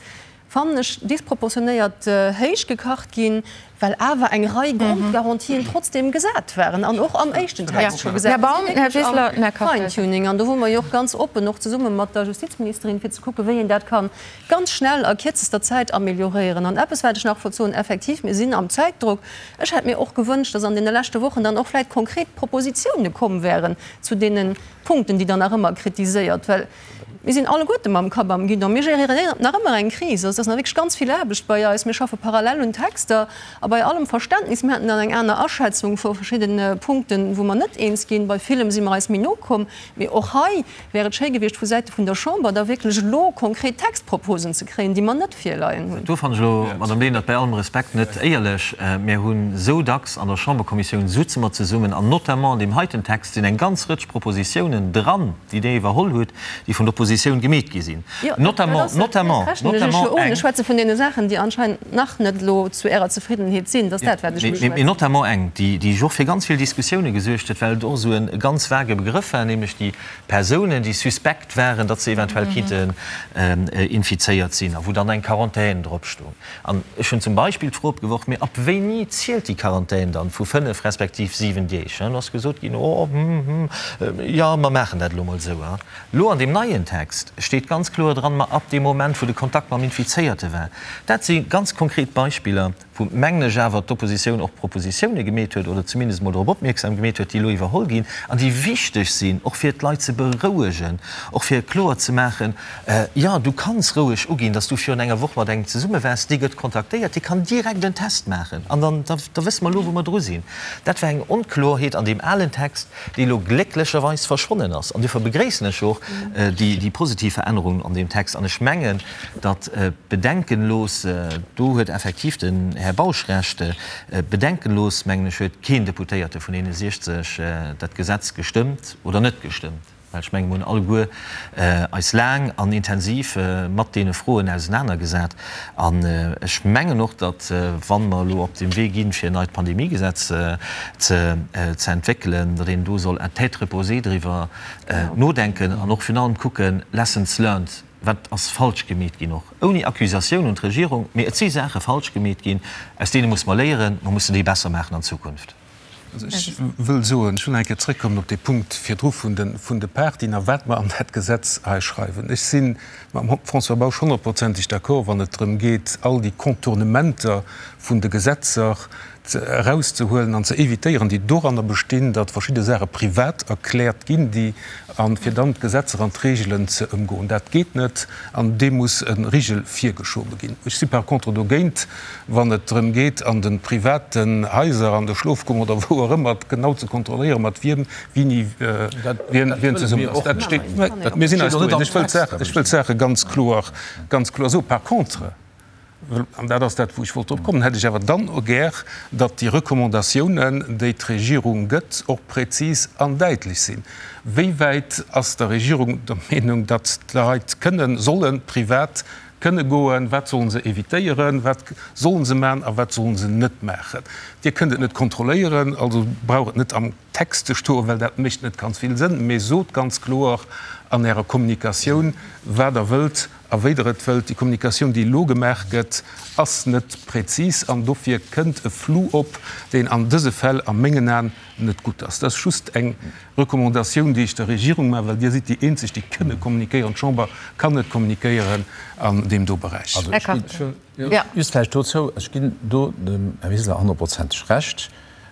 fannen ech, disproportionéiert héich gekacht ginn, well awer eng Rei Grondgarantien trotzdem gesat waren an och am éischten Text scho gesat sinn, am Fine-Tuning. An do wou mer jo och ganz oppen, och zesumme mat der Justizministerin, fir ze kucken, wéi een dat ka ganz schnell a kierzester Zäit amélioréieren. An eppes, wat ech nach wollt soen, Effektiv, mir sinn am Zäitdrock. Ech hätt mir och gewënscht, dass an deene leschte Wochen dann och vläicht konkret Propositione komm wären zu deene Punkten, déi Der nach ëmmer kritiséiert, well Mir sinn alleguerte mam Kapp am Guidon. Mir geréieren nach ëmmer eng Kris. Also et ass nach wierklech ganz vill Aarbecht bei eis. Mir schaffe parallel un Texter a bei allem Verständnis, mir haten dann eng aner Aschätzung vu verschiddene Punkten, wou mer net eens ginn. Bei villem si mer eis méi no komm. Mee och hei wär et schéi gewiescht vu Säite vun der Chamber da wierklech elo konkret Textproposen ze kréien, déi mer net virleien hunn. Do fannen ech elo, Madame Lenert, bei allem Respekt, net éierlech. Mir hunn esou dacks an der Chamberkommissioun sutze mer zesummen an notamment an deem heiten Text sinn eng ganz Rëtsch Propositiounen dran, déi Dir iwwerholl hutt, déi vun der Oppositioun gemeet gi sinn, notamment, notamment, notamment eng. Ech schwätze vun deene Saachen, déi anscheinend nach net elo zu Ärer Zefriddenheet sinn. Dat ass dat, wat ech beschwätzen. Mee notamment eng, déi, déi och fir ganz vill Diskussioune gesuergt huet, well et och esou e ganz vage Begrëff war, nämlech déi Persounen, déi suspekt waren, datt se eventuell kinnten infizéiert sinn a wou dann eng Quarantän drop stoung. An ech hunn zum Beispill d'Fro opgeworf, Mee ab wéini zielt déi Quarantän dann, vu 5 respektiv 7 Deeg? An do ass gesot ginn, Oh, hm, hm, jo, mer maachen dat elo mol esou. Elo an deem neien Text. Text steet ganz kloer dran, ma ab deem Moment, wou de Kontakt mam Infizéierte war. Dat si ganz konkret Beispiller, wou, mengen ech, awer d'Oppositioun och Propositioune gemeet huet oder zumindest emol drop opmierksam gemeet huet, déi elo iwwerholl ginn an déi wichteg sinn, och fir d'Leit ze berouegen, och fir kloer ze maachen, Jo, du kanns roueg uginn, dass du virun enger Woch mat engem zesumme waars, dee gëtt kontaktéiert, dee kann direkt en Test maachen an dann, da wësse mer elo, wou mer dru sinn. Dat war eng Onkloerheet an deem alen Text, déi elo glécklecherweis verschwonnen ass. An duerfir begréissen ech och déi positiv Verännerungen an deem Text. An ech mengen, datt bedenkenlos, do huet effektiv den Här Bausch Recht, bedenkenlos, mengen ech, huet keen Deputéierte vun deene 60 dat Gesetz gestëmmt oder net gestëmmt. Well ech mengen, mir hunn alleguer eis laang an intensiv mat deene Froen ausenanergesat. An ech mengen och, datt, wa mer elo op deem Wee ginn, fir en neit Pandemiegesetz ze entwéckelen, datt een do soll à tête reposée driwwer nodenken an och virun allem kucken, Lessons learned, wat ass falsch gemeet ginn, och ouni Accusatioun un d'Regierung, mee et si Saache falsch gemeet ginn, aus deene muss mer léieren, mer mussen déi besser maachen an Zukunft. Also ech wëll soen, ech wëll nach eng Kéier zrëckkommen op dee Punkt virdru vun de, vun de Partyen a wat mer an dat Gesetz hei schreiwen. Ech si mam François Bausch honnertprozenteg d'accord, wann et drëm geet, all déi Contournementer vun de Gesetzer ze, erauszehuelen an ze évitéieren, déi doranner bestinn, datt verschidde Saache privat erkläert ginn, déi, a fir dann d'Gesetzer an d'Regelen ze ëmgoen. Dat geet net an deem muss e Rigel virgeschobe ginn. Ech si par contre dogéint, wann et drëm geet, an de privaten Haiser, an de Schlofkummern oder wou och ëmmer, genau ze kontrolléieren, mat wiem, wini, wien, wien zesummen ass. Dat steet, mir sinn eis do eens. Ech wëll d'Saach, ech wëll d'Saache ganz kloer, ganz kloer soen. Par contre, an dat ass dat, wou ech wollt drop kommen, hätt ech awer dann och gär, datt déi Recommandatiounen, déi d'Regierung gëtt, och präzis an däitlech sinn. Wéi wäit ass der Regierung der Meenung, datt d'Leit kënnen, sollen privat Kënne goen, wat sollen se evitéieren, wat sollen se maachen a wat sollen se net maachen. Dir kënnt et net kontrolléieren, also brauch et net am Text ze stoen, well dat mécht net ganz vill Sënn, mee sot ganz kloer an Ärer Kommunikatioun, wat Der wëllt a wéi Der et wëllt. Déi Kommunikatioun, déi elo gemaach gëtt, ass net präzis an dofir kënnt e Flou op, deen an dëse Fäll a mengen Aen net gutt ass. Dat ass just eng Recommandatioun, déi ech der Regierung maachen, well Dir sidd déi eenzeg, déi kënne kommunikéieren. D'Chamber kann net kommunikéieren an deem do Beräich. Also ech ginn, just vläicht dozou, ech ginn do dem Här Wiseler honnertprozenteg Recht,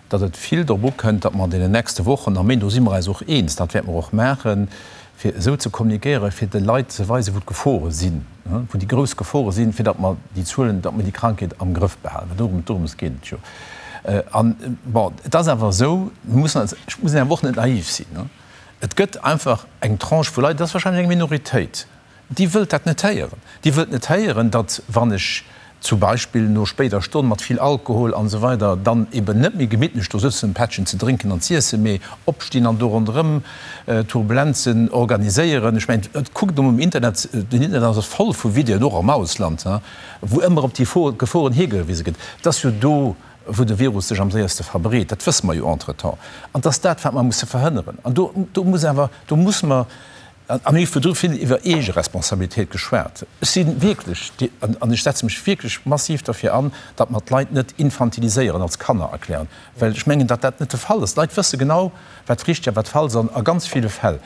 datt et vill drop ukënnt, datt mer an deenen nächste Wochen a Méint, do si mer eis och eens, dat wäerte mer och maachen, fir esou ze kommunikéieren, fir de Leit ze weisen, wou d'Gefore sinn, wou déi grouss Gefore sinn, fir datt mer déi Zuelen, datt mer déi Krankheet am Grëff behalen. Well dorëm, dorëms geet et jo. An, bon, et ass awer esou, mir mussen eis, ech muss awer och net naiv sinn, et gëtt einfach eng Tranche vu Leit, dat ass wahrscheinlech eng Minoritéit, déi wëllt dat net héieren. Déi wëllt net héieren, datt wann ech zum Beispill no spéider Stonn mat vill Alkohol an esou weider dann eben net méi gemittlech do sëtzen, en Pättchen ze drénken an z'iessen, mee opstinn an do ronderëm Turbulenzen organiséieren. Ech mengen, kuckt emol um Internet, den Internet ass voll vu Videoen, och am Ausland, wou ëmmer op déi Geforen higewise gëtt. Et ass jo do, wou de Virus sech am séierste verbreet, dat wësse mer jo entretemps. An et ass dat, wat mer musse verhënneren. An do, do muss awer, do muss mer, a mir hu virdru vill iwwer Eegeresponsabilitéit geschwat, ech si wierklech, an ech setze mech wierklech massiv derfir an, datt mer d'Leit net infantiliséieren, als Kanner erklären, well ech mengen, datt dat net de Fall ass. D'Leit wësse genau, wat richteg a wat falsch ass a ganz ville Fäll.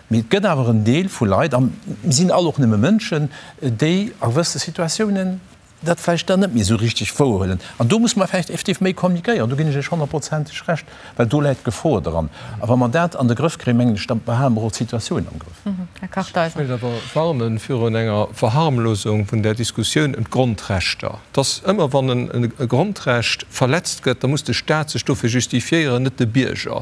Mee et gëtt awer en Deel vu Leit, a mir sinn all och nëmme Mënschen, déi a gewësse Situatiounen dat vläicht dann net méi esou richteg wouerhuelen. An do musse mer vläicht effektiv méi kommunikéieren, do ginn ech Iech honnertprozenteg Recht, well do läit d'Gefor dran. A wa mer dat an de Grëff kréien, mengen ech, da behale mer och d'Situatioun am Grëff. Här Kartheiser. Ech wéilt awer warne virun enger Verharmlosung vun där Diskussioun ëm d'Grondrechter. Et ass ëmmer, wann e Grondrecht verletzt gëtt, da muss de Stat sech dofir justifiéieren, net de Bierger.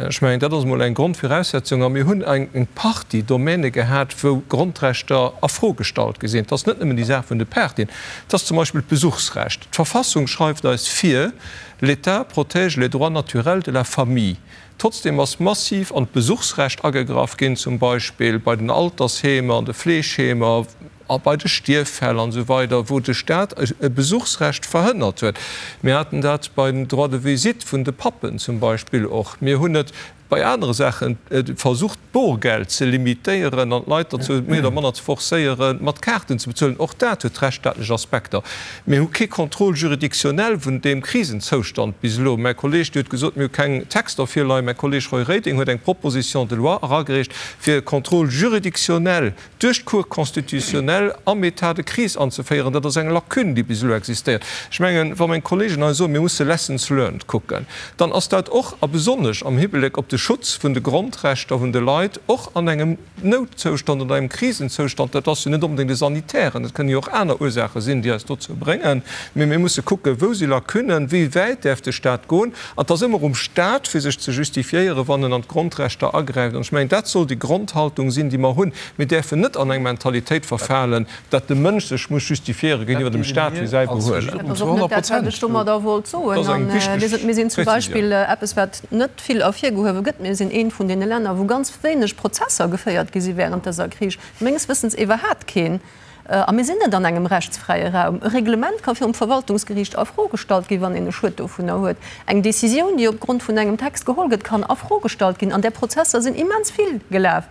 Ech mengen, dat ass emol eng Grondviraussetzung. A mir hunn eng Partie Domäne gehat, wou Grondrechter a Fro gestallt gi sinn. Et ass net nëmmen déi Saach vun de Partyen, et ass zum Beispill d'Besuchsrecht. D'Verfassung schreift eis vir, L'État protège les droits naturels de la famille. Trotzdem ass massiv an d'Besuchsrecht agegraff ginn, zum Beispill bei den Altersheemer, an de Fleegheemer. A bei de Stierffäll an esou weider, wou de Stat e Besuchsrecht verhënnert huet. Mir haten dat beim Droit de visite vun de Pappen zum Beispill och. Mir hunn et bei anere Saachen versucht, d'Borgeld ze limitéieren an d'Leit derzou méi oder manner ze forcéieren, mat Kaarten ze bezuelen. Och dat huet rechtsstaatlech Aspekter. Mir hu kee Contrôle juridictionnel vun deem Krisenzoustand bis elo. Mäi Kolleeg, Dir hutt gesot, mir hu keng Texter virleien. Mäi Kolleeg Roy Reding huet eng Proposition de loi eragereecht, fir e Contrôle juridictionnel duerch d'Cour constitutionnelle am État de crise anzeféieren. Dat ass eng Lacune, déi bis elo existéiert. Ech mengen, wa meng Kolleegen hei soen, mir musse Lessons learned kucken, dann ass dat och a besonnesch am Hibleck op de Schutz vun de Grondrechter vun de Leit, och an engem Noutzoustand oder engem Krisenzoustand, dat ass jo net onbedéngt e sanitären, et kënnen jo och aner Ursaache sinn, déi eis dozou bréngen, mee mir musse kucken, wou si Lacunen, wéi wäit däerf de Stat goen. An et ass ëmmer um Stat, fir sech ze justifiéieren, wann en an d'Grondrechter agräift. An ech mengen, dat soll déi Grondhaltung sinn, déi mer hunn. Mir däerfen net an eng Mentalitéit verfalen, datt de Mënsch sech muss justifiéiere géintiwwer dem Stat fir säi Behuelen. Dat ass och net dat, wat ech domadder wollt soen. Dat ass eng wichteg Mir sinn zum Beispill Prezisioun. Eppes, wat net vill ervirgehuewe gëtt, Mir sinn eent vun deene Länner, wou ganz wéineg Prozesser geféiert gi si während dëser Kris, menges Wëssens iwwerhaapt keen. A mir sinn net an engem rechtsfräie Raum. E Reglement ka virum Verwaltungsgeriicht a Fro gestallt ginn, wann een e Schued dovunner huet. Eng Décisioun, déi opgrond vun engem Text geholl gëtt, kann a Fro gestallt ginn. An där Prozesser sinn immens vill gelaf.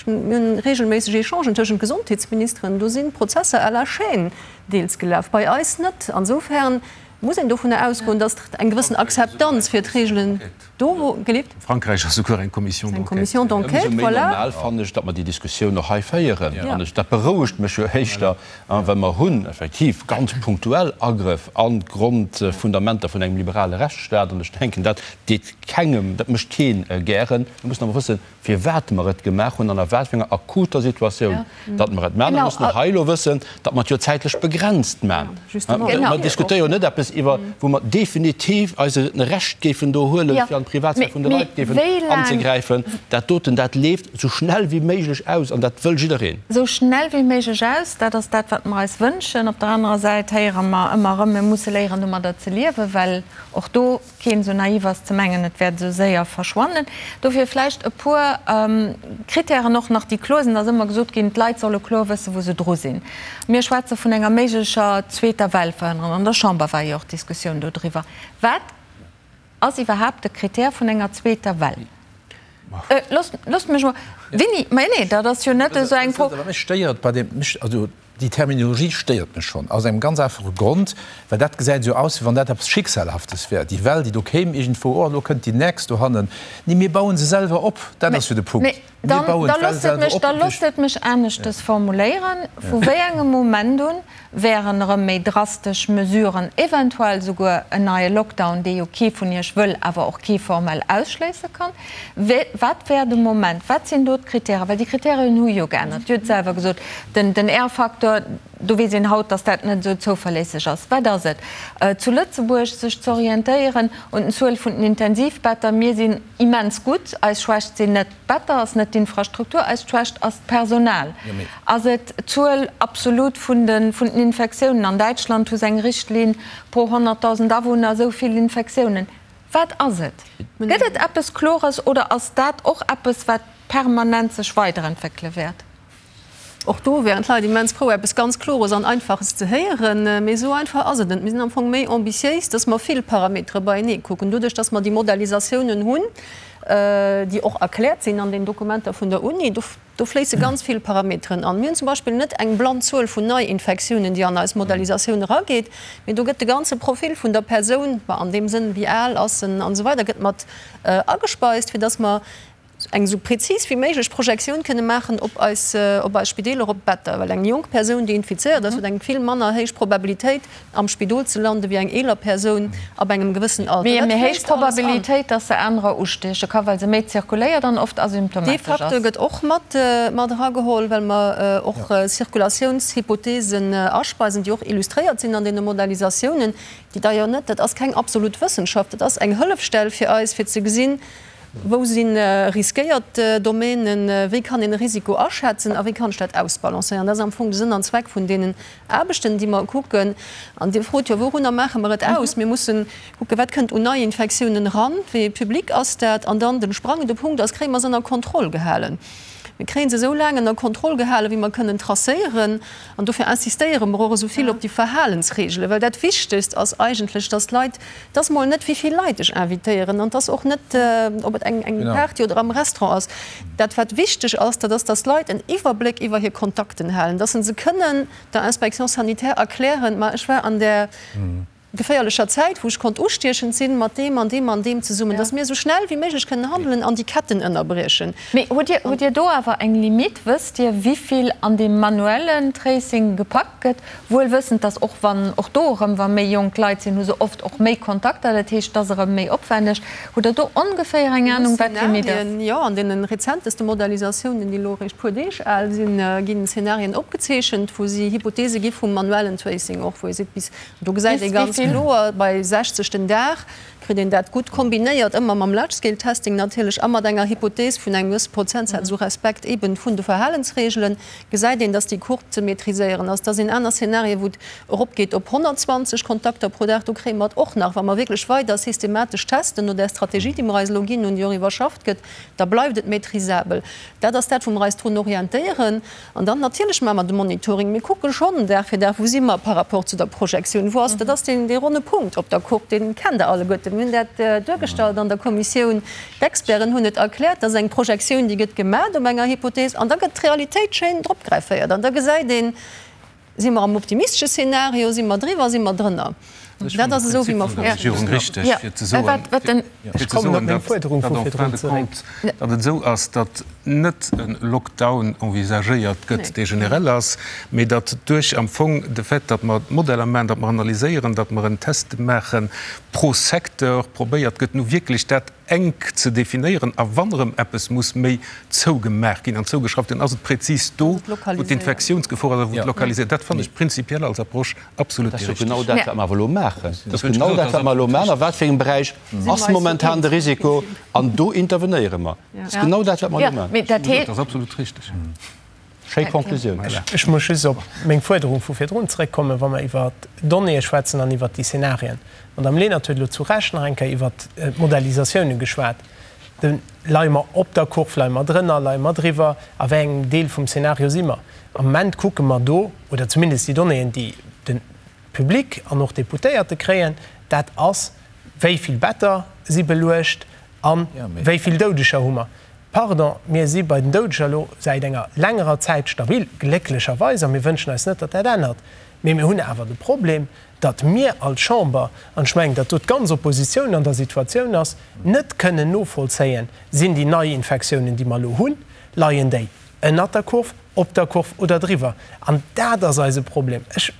Mir hunn regelméisseg Echangen tëschent Gesondheetsministeren. Do sinn d'Prozesser à la chaîne deels gelaf, bei eis net. Insofern muss een dovunner ausgoen, datt eng gewëssen Akzeptanz fir d'Regelen do wou gelift. Frankräich ass souguer eng Commission d'enquête. Eng Commission d'enquête, Ëmsou méi voilà. normal fannen ech, datt mer déi Diskussioun och hei féieren. An ech, dat berouegt mech jo éischter, well mer hunn effektiv ganz punktuell Agrëff an d'Grondfundamenter vun engem liberale Rechtsstaat. An ech denken, dat deet kengem, dat mécht keen gären. Mir mussen awer wëssen, firwat mer et gemaach hunn an a wat fir enger akuter Situatioun datt mer et maachen. A mer mussen och hei elo wëssen, datt mer et jo zäitlech begrenzt maachen. Mer diskutéiere jo net eppes iwwer, wou mer definitiv eis e Recht géifen do huelen, fir an d'Privatsphär vun de Leit géifen anzegräifen. Dat doten, dat leeft esou schnell wéi méiglech aus an dat wëll jiddereen. Esou schnell wéi méiglech aus, dat ass dat, wat mer eis wënschen. Op der anerer Säit héiere mer ëmmer erëm, mir musse léieren, domadder ze liewen, well och do keen esou naiv ass ze mengen, et wäert esou séier verschwannen. Dofir vläicht e puer Kritären och nach, déi kloer sinn. Et ass ëmmer gesot ginn, d'Leit solle kloer wëssen, wou se dru sinn. Mir schwätze vun enger méiglecher zweeter Well verhënneren. An der Chamber war jo och d'Diskussioun dodriwwer. Wat ass iwwerhaapt de Kritär vun enger zweeter Well? Loosst mech emol, Winni, mä nee, dat ass jo net esou eng Fro. Wat mech stéiert bei deem, also Déi Terminologie stéiert mech schonn, aus engem ganz einfache Grond, well dat gesäit esou aus, wéi wann dat eppes Schicksalhaftes wär, déi Well, déi do kéim iergendwou, oh, elo kënnt déi nächst dohannen. Nee, mir baue se selwer op, dat ass jo de Punkt. Mir bauen d'Well selwer op. Da loosst et mech aneschtes formuléieren, Vu wéi engem Moment un wären erëm méi drastesch Mesuren, eventuell souguer en neie Lockdown, dee jo kee vun Iech wëll, awer och kee formell ausschléisse kann, Wat wär de Moment, wat sinn do d'Kritären? Well déi Kriterien hu jo geännert. Dir hutt selwer gesot, den R-Faktor, do weess een haut, datt dat net esou zouverléisseg ass. Wat ass et zu Lëtzebuerg, sech ze orientéieren un den Zuel vun den Intensivbetter? Mir sinn immens gutt. Eis Schwächt sinn net d'Better, ass net d'Infrastruktur, eis Schwächt ass d'Personal. Ass et d'Zuel absolut vun den Infektiounen? An Däitschland hu se eng Richtlinn pro 100.000 Awunner esou vill Infektiounen. Wat ass et? Gëtt et eppes Klores oder ass dat och eppes, wat permanent sech weiderentwéckele wäert? Och do wären d'Leit immens frou, eppes ganz Klores an Einfaches ze héieren. Mee esou einfach ass et net. Mir sinn am Fong méi ambitiéis, dass mer vill Parametere beienee kucken. Doduerch, dass mer déi Modellisatiounen hunn, déi och erkläert sinn an den Dokumenter vun der Uni, Do fléisse ganz vill Parameteren an. Mir hunn zum Beispill net eng blann Zuel vun Neiinfektiounen, déi an eis Modellisatioun erageet, mee do gëtt de ganze Profil vun der Persoun, an deem Sënn, wéi al ass en an esou weider, gëtt mat agespeist, fir dass mer eng esou prezis wéi méiglech Projektioun kënne maachen op eis, op eis Spideeler, op d'Better. Well eng jonk Persoun, déi infizéiert ass, huet eng vill manner héich Probabilitéit, am Spidol ze landen, wéi eng eeler Persoun ab engem gewëssen Alter. Mee méi héich Probabilitéit, dass se anerer ustieche ka, well se méi zirkuléiert an oft asymptomatesch ass. Dee Facteur gëtt och mat erageholl, well mer och Zirkulatiounshypotheesen aspeisen, déi och illustréiert sinn an deene Modellisatiounen, déi d'ailleurs net, dat ass keng absolut Wëssenschaft, dat ass eng Hëllefstell fir eis, fir ze gesinn, wou si riskéiert Domänen, wéi kann een e Risiko aschätzen a wéi kann ech dat ausbalancéieren. Dat ass am Fong de Sënn an Zweck vun deenen Aarbechten, déi mer kucken. An Dir frot jo, Wourunner maache mer et aus? Mir mussen kucken, wat kënnt un Neiinfektiounen eran, wéi ee Public ass dat? An dann de sprangende Punkt ass, Kréie mer se ënner Kontroll gehalen? Mir kréie se esou laang ënner Kontroll gehalen, wéi mer kënnen tracéieren. An dofir insistéiere mer och esou vill op déi Verhalensregelen, well dat Wichtegst ass eigentlech, dass d'Leit, et ass mol net, wéi vill Leit ech invitéieren, an et ass och net, ob et eng Party oder am Restaurant ass. Dat, wat wichteg ass, dat ass, dass d'Leit en Iwwerbléck iwwer hir Kontakten halen, dass se se kënnen der Inspection sanitaire erklären, Ma ech war an där geféierlecher Zäit, wou ech konnt ustiechend sinn, mat deem an deem an deem zesummen, dass mir esou schnell wéi méiglech kënnen handelen an déi Ketten ënnerbriechen. Mee hutt Dir, hutt Dir do awer eng Limite? Wësst Dir, wivill an deem manuellen Tracing gepackt gëtt? Wuel wëssend, dass och wann, och do erëm, wa méi jonk Leit sinn, hu se oft och méi Kontakter, dat heescht, et ass erëm méi opwänneg. Hutt Der do ongeféier eng Anung, wat d'Limite ass? Jo, an deene rezenteste Modellisatiounen, déi elo eréischt puer Deeg al sinn, ginn Szenarien opgezeechent, wou si Hypothese gi vum manuellen Tracing och, wou ee seet, bis Do gesäit ee ganz kloer, bei 60 den Dag kritt een dat gutt kombinéiert, ëmmer mam Large-Scale-Testing natierlech a mat enger Hypothees vun engem gewësse Prozentsaz u Respekt eeben vun de Verhalensregelen, gesäit een, dass déi Courbe ze maîtriséieren ass. Da sinn aner Szenarien, wou et eropgeet op 120 Kontakter pro Dag. Do kréie mer et och nach, wa mer wierklech weider systematesch testen, no där Strategie, déi mer eis elo ginn hunn, déi och iwwerschafft gëtt, da bleift et maîtrisabel. Dat ass dat, wou mer eis drun orientéieren. An dann natierlech maache mer de Monitoring. Mir kucke schonn Dag fir Dag, wou si mer par rapport zu der Projektioun, wou ass, dat ass deen, dee ronne Punkt op der Courbe, dee kennt Der alleguerten. Mir hunn dat duergestallt an der Kommissioun, d'Experten hunn et erkläert. Dat ass eng Projektioun, déi gëtt gemaach op enger Hypothees an da gëtt d'Realitéit schéin dropgrefféiert an da gesäit een, Si mer am optimistesche Szenario, si mer driwwer, si mer drënner? Dat ass esou, wéi mer Regierung richteg, fir ze soen, fir ze soen, datt en fin de compte, datt et esou ass, datt net e Lockdown envisagéiert gëtt, dee generell ass, mee datt duerch am Fong de Fait, datt mer d'Modeller maachen, datt mer analyséieren, datt mer en Test maache pro Secteur, probéiert gëtt, nu wierklech dat enk ze definéieren a wann erëm eppes muss méi zougemaach ginn an zougeschrauft ginn, ass et prezis do, wou d'Infektiounsgefor ass a wou et lokaliséiert. Dat fannen ech prinzipiell als Approche absolut déi richteg. Dat ass jo genau dat, wat mer awer elo maachen. Dat ass genau dat, wat mer elo maachen. A wat fir engem Beräich ass momentan de Risiko? An do intervenéiere mer. Dat ass genau dat, wat mer elo maachen. Dat ass absolut richteg. Schéi Conclusioun. Ech muss just op meng Fuerderung vu virdrun zrëckkommen, wa mer iwwert d'Donnéeë schwätzen an iwwert déi Szenarien. D'Madame Lenert huet elo zu Recht nach eng Kéier iwwert d'Modellisatiounen geschwat. De, leie mer op der Kurv, leie mer drënner, leie mer driwwer, a wéi engem Deel vum Szenario si mer? Am Moment kucke mer do, oder zumindest déi Donnéeën, déi de Public an och d'Deputéierte kréien, dat ass, wéi vill Better si beluecht a wéi vill Doudeger hu mer. Pardon, mir si bei den Doudeger elo säit enger längerer Zäit stabil, glécklecherweis, a mir wënschen eis net, datt dat ännert. Mee mir hunn awer de Problem, datt mir als Chamber, an ech mengen, datt do d'ganz Oppositioun an der Situatioun ass, net kënnen novollzéien, Sinn déi Neiinfektiounen, déi mer elo hunn, leien déi ënnert der Kurv, op der Kurv oder driwwer? An dat ass eise Problem. Ech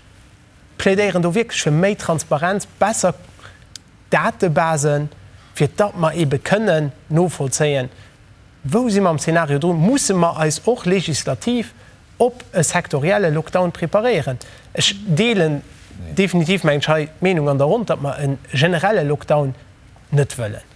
plädéieren do wierklech fir méi Transparenz, besser Datebasen, fir datt mer eebe kënnen novollzéien, wou si mer am Zeenario drun, musse mer eis och legislativ op e sektorielle Lockdown preparéieren. Ech deelen definitiv, mengen ech, hei d'Meenung an der Ronn, datt mer e generelle Lockdown net wëllen.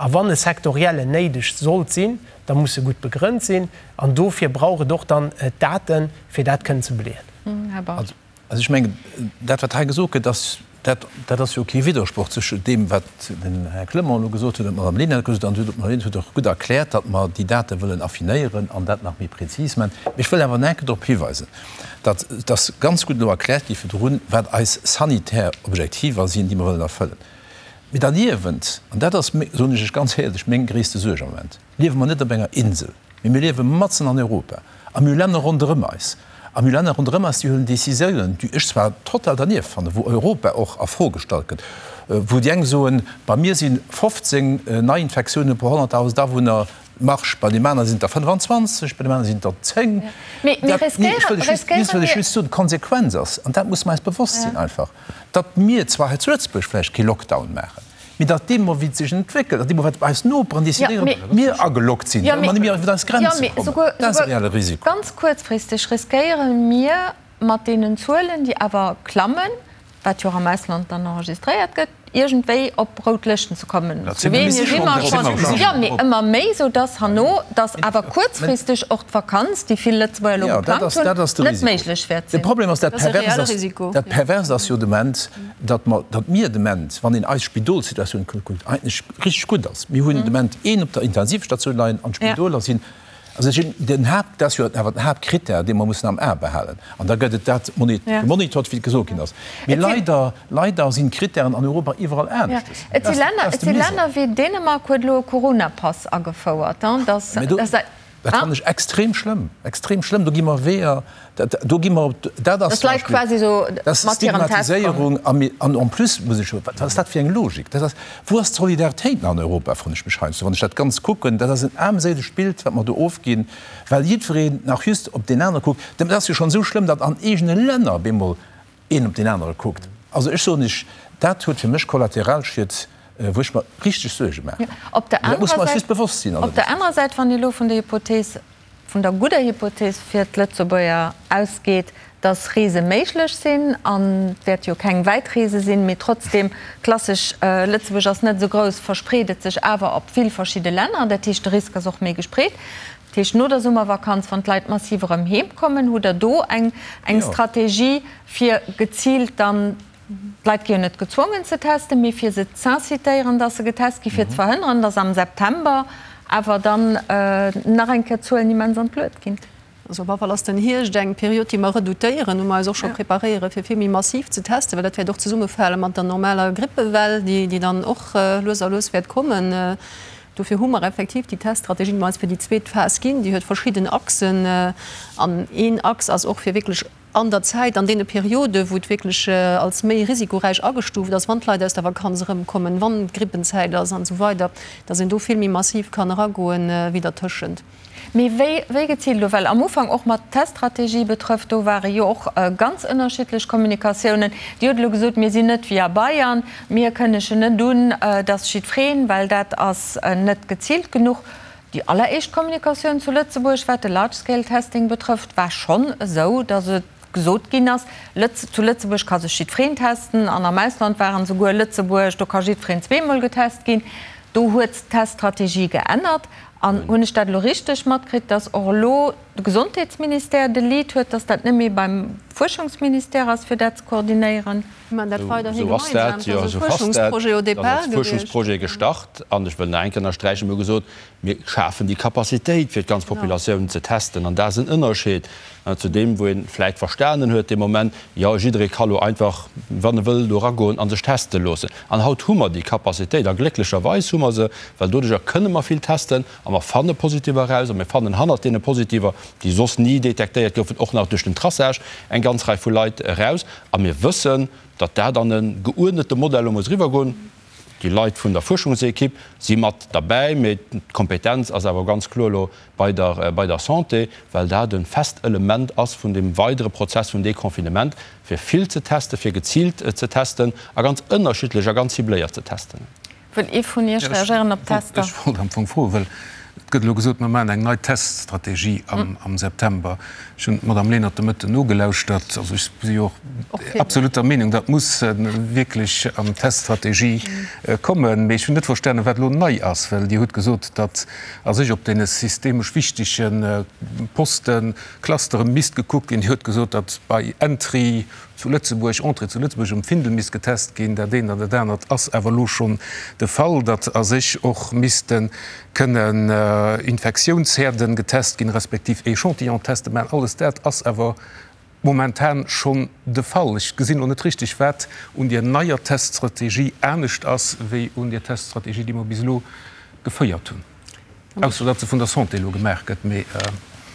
A wann e sektoriellen néideg sollt sinn, da muss e gutt begrënnt sinn. An dofir brauch et och dann d'Daten, fir dat kënnen ze beleeën. Här Bausch. Also ech mengen, dat wat hei gesot gëtt, ass, dat, dat ass jo kee Widdersproch zwëschen deem, wat den Här Clement elo gesot huet an d'Madame Lenert gesot huet. An d'Madame Lenert huet och gutt erkläert, datt mer déi Date wëllen affinéieren an dat nach méi prezis maachen. Mee ech wëll awer nach eng Kéier drop hiweisen, datt et ass ganz gutt elo erkläert gi virdrun, wat eis sanitär Objektiver sinn, déi mer wëllen erfëllen. Mee derniewent, an dat ass, soen ech lech ganz éierlech, meng gréisste Suerg am Moment, liewe mer net op enger Insel. Mee mir liewe matzen an Europa a mir hu Länner ronderëm eis. A mir hu Länner ronderëm eis, déi huelen Décisiounen, déi ech zwar total dernieft fannen, wou Europa och a Fro gestallt gëtt, wou déi eng soen, bei mir si 15 Neiinfektiounen pro 100.000 Awunner Marge, bei deem anere sinn et der 25, bei deem anere sinn et der 10. Mee mir riskéieren, riskéiere mir. Ech wëll just soen, d'Konsequenz ass, an dat musse mer eis bewosst sinn einfach, datt mir zwar hei zu Lëtzebuerg vläicht kee Lockdown maachen, Mee datt deemno wéi et sech entwéckelt an deemno wat eis Noperen decidéieren, mir agelockt sinn, well mer net méi iwwer eis Grenze kommen, dat ass e reelle Risiko. Ganz kuerzfristeg riskéiere mir mat deenen Zuelen, déi awer klammen, wat jo och am Ausland dann enregistréiert gëtt, iergendwéi op rout Lëschten ze kommen. Slowenien si mer schonn, jo, mee ëmmer méi, soudatt herno, datt awer kuerzfristeg och d'Vakanz, déi vill Lëtzebuerger elo geplangt hunn, net méiglech wäert sinn. De Problem ass, dat Perverst ass jo de Moment, datt mer, datt mir de Moment, wann een eis Spidolssituatioun kuckt, eigentlech richteg gutt ass. Mir hunn de Moment een op der Intensivstatioun leien an d'Spidoler sinn. Also ech, den Haapt, dat ass jo awer den Haaptkrittär, dee mer mussen am A behalen. An da gëtt et dat gemonitort, wéi et gesot ginn ass. Mee leider, leider sinn d'Krittären an Europa iwwerall aneschtes. Et si Länner, et si Länner wéi Dänemark huet elo e Coronapass agefouert. Dat fannen ech extrem schlëmm, extrem schlëmm. Do gi mer Weeër, do gi mer, dat ass zum Beispill, dat ass Stigmatiséierung. An en plus muss ech, wat ass dat fir eng Logik? Dat ass, wou ass d'Solidaritéit nach an Europa, froen ech mech heiansdo, wann ech dat Ganzt kucken. Dat ass en aarmséilegt Bild, wat mer do ofginn, well jiddwereen nach just op deen anere kuckt. Dat ass jo schonn esou schlëmm, datt an eegene Länner op eemol een op deen anere kuckt. Also ech soen Iech, dat huet fir mech Kollateralschied, wou ech mer richteg Suerge maachen. Op der Mee dat muss mer eis just bewosst sinn. Op der anerer Säit, wann ee elo vun der Hypothees, vun der gudder Hypothees fir d'Lëtzebuerger ausgeet, datt Reese méiglech sinn, an et wäerte jo keng wäit Reese sinn, mee trotzdem, klassesch, Lëtzebuerg ass net esou grouss, verspreet et sech awer op vill verschidde Länner, dat heescht de Risk ass och méi gespreet. Dat heescht, no der Summervakanz, wann d'Leit massiv erëm heem kommen, hutt Der do eng Strategie, fir geziilt dann, d'Leit gi jo net gezwongen ze testen, mee fir se z'incitéieren, dass se getest ginn, fir ze verhënneren, dass am September awer dann nach eng Kéier d'Zuelen immens an d'Luet ginn? Also op alle Fall ass den Hierscht eng Period, déi mer redoutéieren, wou mer eis och scho preparéieren, fir vill méi massiv ze testen, well dat wäert och zesummefale mat der normaler Grippewell, déi dann och lues a lues wäert kommen. Dofir hu mer effektiv déi Teststrategie, déi mer eis fir déi zweet Phas ginn, déi huet verschidden Achsen. An een Achs ass och, fir wierklech an der Zäit, an deene Perioden, wou et wierklech als méi risikoräich agestuuft ass, wann d'Leit aus der Vakanz erëmkommen, wann d'Grippenzäit ass an esou weider, dass een do vill méi massiv kann eragoen wéi dertëschent. Mee wéi, wéi geziilt elo? Well am Ufank, och mat d'Teststrategie betrëfft, do ware jo och ganz ënnerschiddlech Kommunikatiounen. Dir hutt elo gesot, mir sinn net wéi a Bayern, mir kënnegen net un, dass jiddwereen, well dat ass net geziilt genuch. Déi alleréischt Kommunikatioun zu Lëtzebuerg, wat de Large-Scale-Testing betrëfft, war schonn esou, dass et gesot ginn ass, Lëtz, zu Lëtzebuerg ka sech jiddwereen testen an am Ausland waren esouguer Lëtzebuerg, do ka jiddwereen zweemol getest ginn. Do huet d'Teststrategie geännert. An hunn ech dat elo richteg matkritt, dass och elo de Gesondheetsministère de Lead huet, dass dat net méi beim Fuerschungsministère ass, fir dat ze koordinéieren? Mir maachen dat weiderhi gemeinsam. Dat ass e Fuerschungsprojet au départ gewiescht. Fuerschungsprojet gestart. An ech wëll nach eng Kéier ënnersträichen, mir hu gesot, mir schafen déi Capacitéit, fir d'ganz Populatioun ze testen. An dat ass en Ënnerscheed zu deem, wou ee vläicht verstanen huet dee Moment, jo, jidderee ka lo einfach, wann e wëll, do eragoen a sech teste loossen. An haut hu mer déi Capacitéit, a glécklecherweis hu mer se, well doduerjer kënne mer vill testen a mer fanne Positiver eraus a mir fannen hannert deene Positiver, déi soss ni detektéiert goufen, och nach duerch den Traçage eng ganz Rei vu Leit eraus. A mir wëssen, datt dat an e geuerdnete Modell elo muss eriwwergoen. Déi Leit vun der Fuerschungsekipp si mat derbäi, mee d'Kompetenz ass awer ganz kloer elo bei der, bei der Santé, well dat e fest Element ass vun deem weidere Prozess vum Deconfinement, fir vill ze testen, fir geziilt ze testen a ganz ënnerschiddlech a ganz cibléiert ze testen. Wëll ee vun Iech reagéieren op d'Tester? Ech wollt am Fong froen, well et gëtt elo gesot, mer maachen eng nei Teststrategie am September. Ech hunn d'Madame Lenert de Mëtten nogelauschtert. Also ech si jo och absolut der Meenung, dat muss wierklech an d'Teststrategie kommen. Mee ech hunn net verstanen, wat elo nei ass, well Dir hutt gesot, datt a sech op deene systemesch wichtege Posten, Clustere misst gekuckt ginn. Dir hutt gesot, datt bei Entry zu Lëtzebuerg, Entrée zu Lëtzebuerg um Findel misst getest ginn. Dat eent an dat anert ass awer elo schonn de Fall, datt a sech och misste kënnen Infektiounsherden getest ginn, respektiv Echantillon-Teste maachen. Alles dat ass awer momentan schonn de Fall. Ech gesinn elo net richteg, wat un deer neier Teststrategie anescht ass wéi un deer Teststrategie, déi mer bis elo geféiert hunn. Ausser datt se vun der Santé elo gemaach gëtt, mee.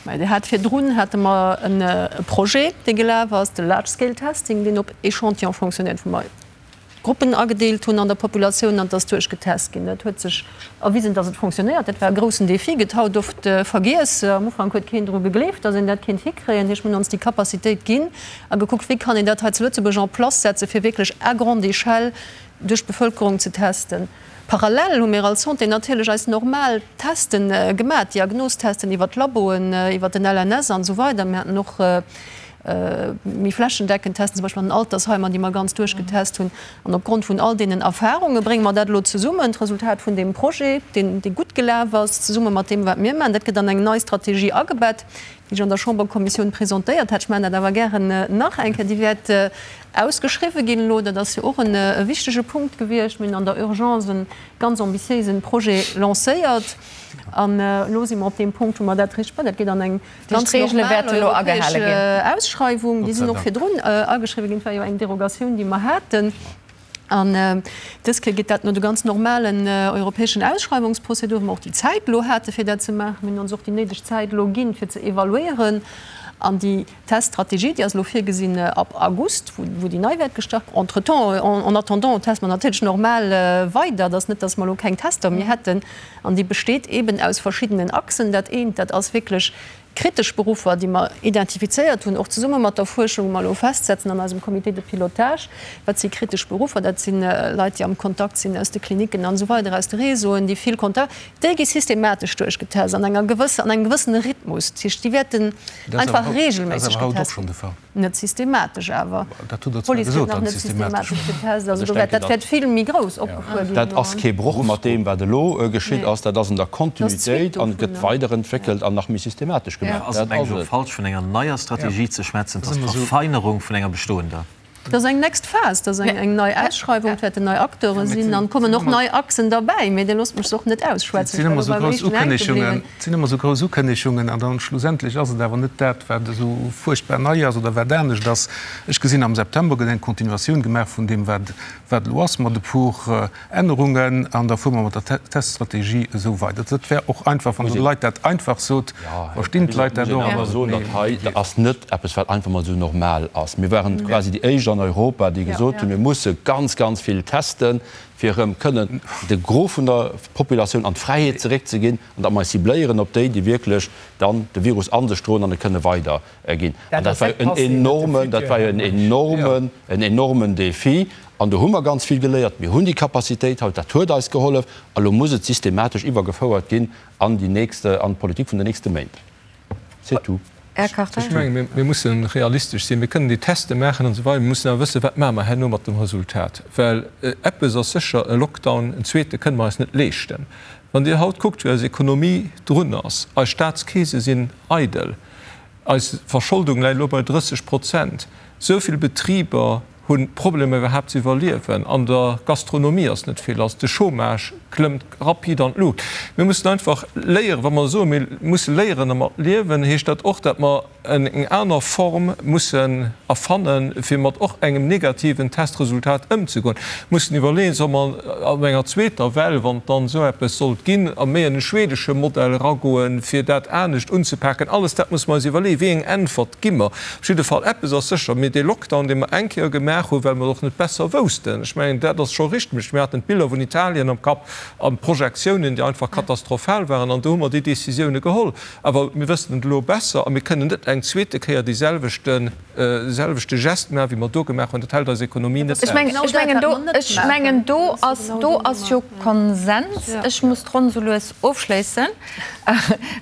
Mä Dir hat virdrun hate mer e Projet, dee gelaf ass, de Large Scale Testing, deen op Echantillon fonctionnéiert, wou mer Gruppen agedeelt hunn an der Populatioun an et ass duerchgetest ginn. Dat huet sech erwisen, datt et fonctionnéiert. Dat war e groussen Défi, gëtt haut oft vergiess. Am Ufank huet keen dru gegleeft, datt een dat kéint hikréien. Heescht, mir hunn ons déi Capacitéit ginn a gekuckt, wéi kann een dat hei zu Lëtzebuerg en place setzen, fir wierklech à grande échelle duerch d'Bevëlkerung ze testen. Parallel hu mir als Santé natierlech eis normal Testen gemaach, Diagnostesten iwwer d'Laboen, iwwer den LNS an esou weider. Mir haten och méi flächendeckend Testen, zum Beispill an den Altersheimer, déi mer ganz duerchgetest hunn. An opgrond vun all deenen Erfarunge brénge mer dat elo zesummen, d'Resultat vun deem Projet, deen, dee gutt gelaf ass, zesumme mat deem, wat mir maachen. Dat gëtt an eng nei Strategie agebett. déi ech an der Chamberkommissioun presentéiert hat. Ech maachen dat awer gären nach eng Kéier. Déi wäert ausgeschriwwen ginn elo. Dat ass jo och e wichtege Punkt gewiescht. Mir hunn an der Urgence e ganz ambitiéisen Projet lancéiert. An elo si mer op deem Punkt, wou mer dat richteg. Dat geet an eng ganz normal europäesch Ausschreiwung. Déi sinn och virdrun ageschriwwen ginn. Et war jo eng Derogatioun, déi mer haten. An dës Kéier geet dat no de ganz normalen europäeschen Ausschreiwungsprozeduren, wou mer och déi Zäit elo hate fir dat ze maachen. Mir hunn ons och déi néideg Zäit elo ginn, fir ze evaluéieren. An déi Teststrategie, déi ass elo virgesinn ab August, wou déi nei wäert gestart. Entretemps, en attendant, teste mer natierlech normal weider. Et ass net, datt mer elo keng Tester méi hätten. An déi besteet eeben aus verschiddenen Achsen. Dat eent, dat ass wierklech kritesch Beruffer, déi mer identifizéiert hunn, och zesumme mat der Fuerschung, wou mer elo festsetzen an eisem Comité de pilotage, wat si kritesch Beruffer, dat si Leit, déi am Kontakt sinn aus de Klinicken an esou weider, aus de Réseauen, déi vill Kontakt, déi gi systematesch duerchgetest an enger gewësse, an engem gewëssene Rhythmus. Dat heescht, déi wäerten einfach regelméisseg getest ginn. Net systematesch awer. D'Police gëtt nach net systematesch getest. Also do wäert, dat wäert vill méi grouss opgefuer ginn. Dat ass kee Broch mat deem, wat elo geschitt ass. Dat ass an der Kontinuitéit an gëtt weiderentwéckelt an nach méi systematesch gemaach. Ass et mengen ech och falsch, vun enger neier Strategie ze schwätzen. Et ass d'Verfeinerung vun enger bestoender. Dat ass eng next Phas, dat ass eng nei Ausschreiwung, et wäerten nei Acteure sinn an et kommen och nei Achsen derbäi. Mee Dir loosst mech se och net ausschwätzen. Et sinn ëmmer esou grouss Ukënnegungen, et sinn ëmmer esou grouss Ukënnegungen an dann schlussendlech ass et awer net dat, wat esou fuerchtbar nei ass oder wat anescht ass. Ech gesinn, am September gëtt eng Continuatioun gemaach vun deem, wat wat elo ass, mat e puer Ännerungen, an da fuere mer mat der Teststrategie esou weider. Dat wär och einfach, wann Der de Leit dat einfach sot, verstinn d'Leit dat och. Muss een awer soen, datt hei, dat ass net eppes, wat einfach mol esou normal ass. Mir waren quasi déi éischt an Europa, déi gesot hunn, mir musse ganz, ganz vill testen, fir erëm kënnen de Gros vun der Populatioun an d'Fräiheet zeréckzeginn an datt mer eis cibléieren op déi, déi wierklech dann de Virus a sech droen an e kënne weiderginn. An dat war jo en enormen, dat war jo en enormen, en enormen Défi. An do hu mer ganz vill geléiert. Mir hunn déi Capacitéit haut, dat huet eis gehollef. A lo muss et systematesch iwwergefouert ginn an déi nächst, an d'Politik vun den nächste Méint. C'est tout. Här Kartheiser. Ech menge mir musse realistesch sinn. Mir kënnen déi Teste maachen an esou weider. Mir mussen awer wëssen, wat maache mer herno mat dem Resultat. Well eppes ass sécher, e Lockdown, en zweete kënne mer eis net leeschten. Wann Dir haut kuckt, wéi eis Ekonomie drun ass, eis Staatskeese sinn eidel, eis Verscholdung läit elo bei 30 Prozent, esou vill Betriber hu Problemer iwwerhaapt ze iwwerliewen, an der Gastronomie ass net vill lass, de Chômage klëmmt rapid an d'Luucht. Mir mussen einfach léieren, wa mer soen, mir musse léieren dermat liewen, heescht dat och, datt mer eng aner Form mussen erfannen, fir mat och engem negativen Testresultat ëmzegoen. Mussen iwwerleeën, solle mer an enger zweeter Well, wann et dann esou eppes sollt ginn, a méi an e schwedesche Modell eragoen, fir dat anescht unzepaken. Alles dat musse mer eis iwwerleeën. Wéi eng Äntwert gi mer? Op jidde Fall, eppes ass sécher, Mir, dee Lockdown, dee mer eng Kéier gemaach hunn, well mer et och net besser woussten, ech mengen, dat ass scho richteg, mir haten d'Biller vun Italien am Kapp an d'Projektiounen, déi einfach katastrophal waren, an do hu mer déi Décisioune geholl. Awer mir wëssen et elo besser a mir kënnen net eng zweete Kéier dee selwechte selwechte Geste maachen, wéi mer do gemaach hunn. Dat hält eis Ekonomie net aus. Ech mengen, do, ech mengen, do ass, do ass jo Konsens. Ech muss d'Ronn esou lues ofschléissen,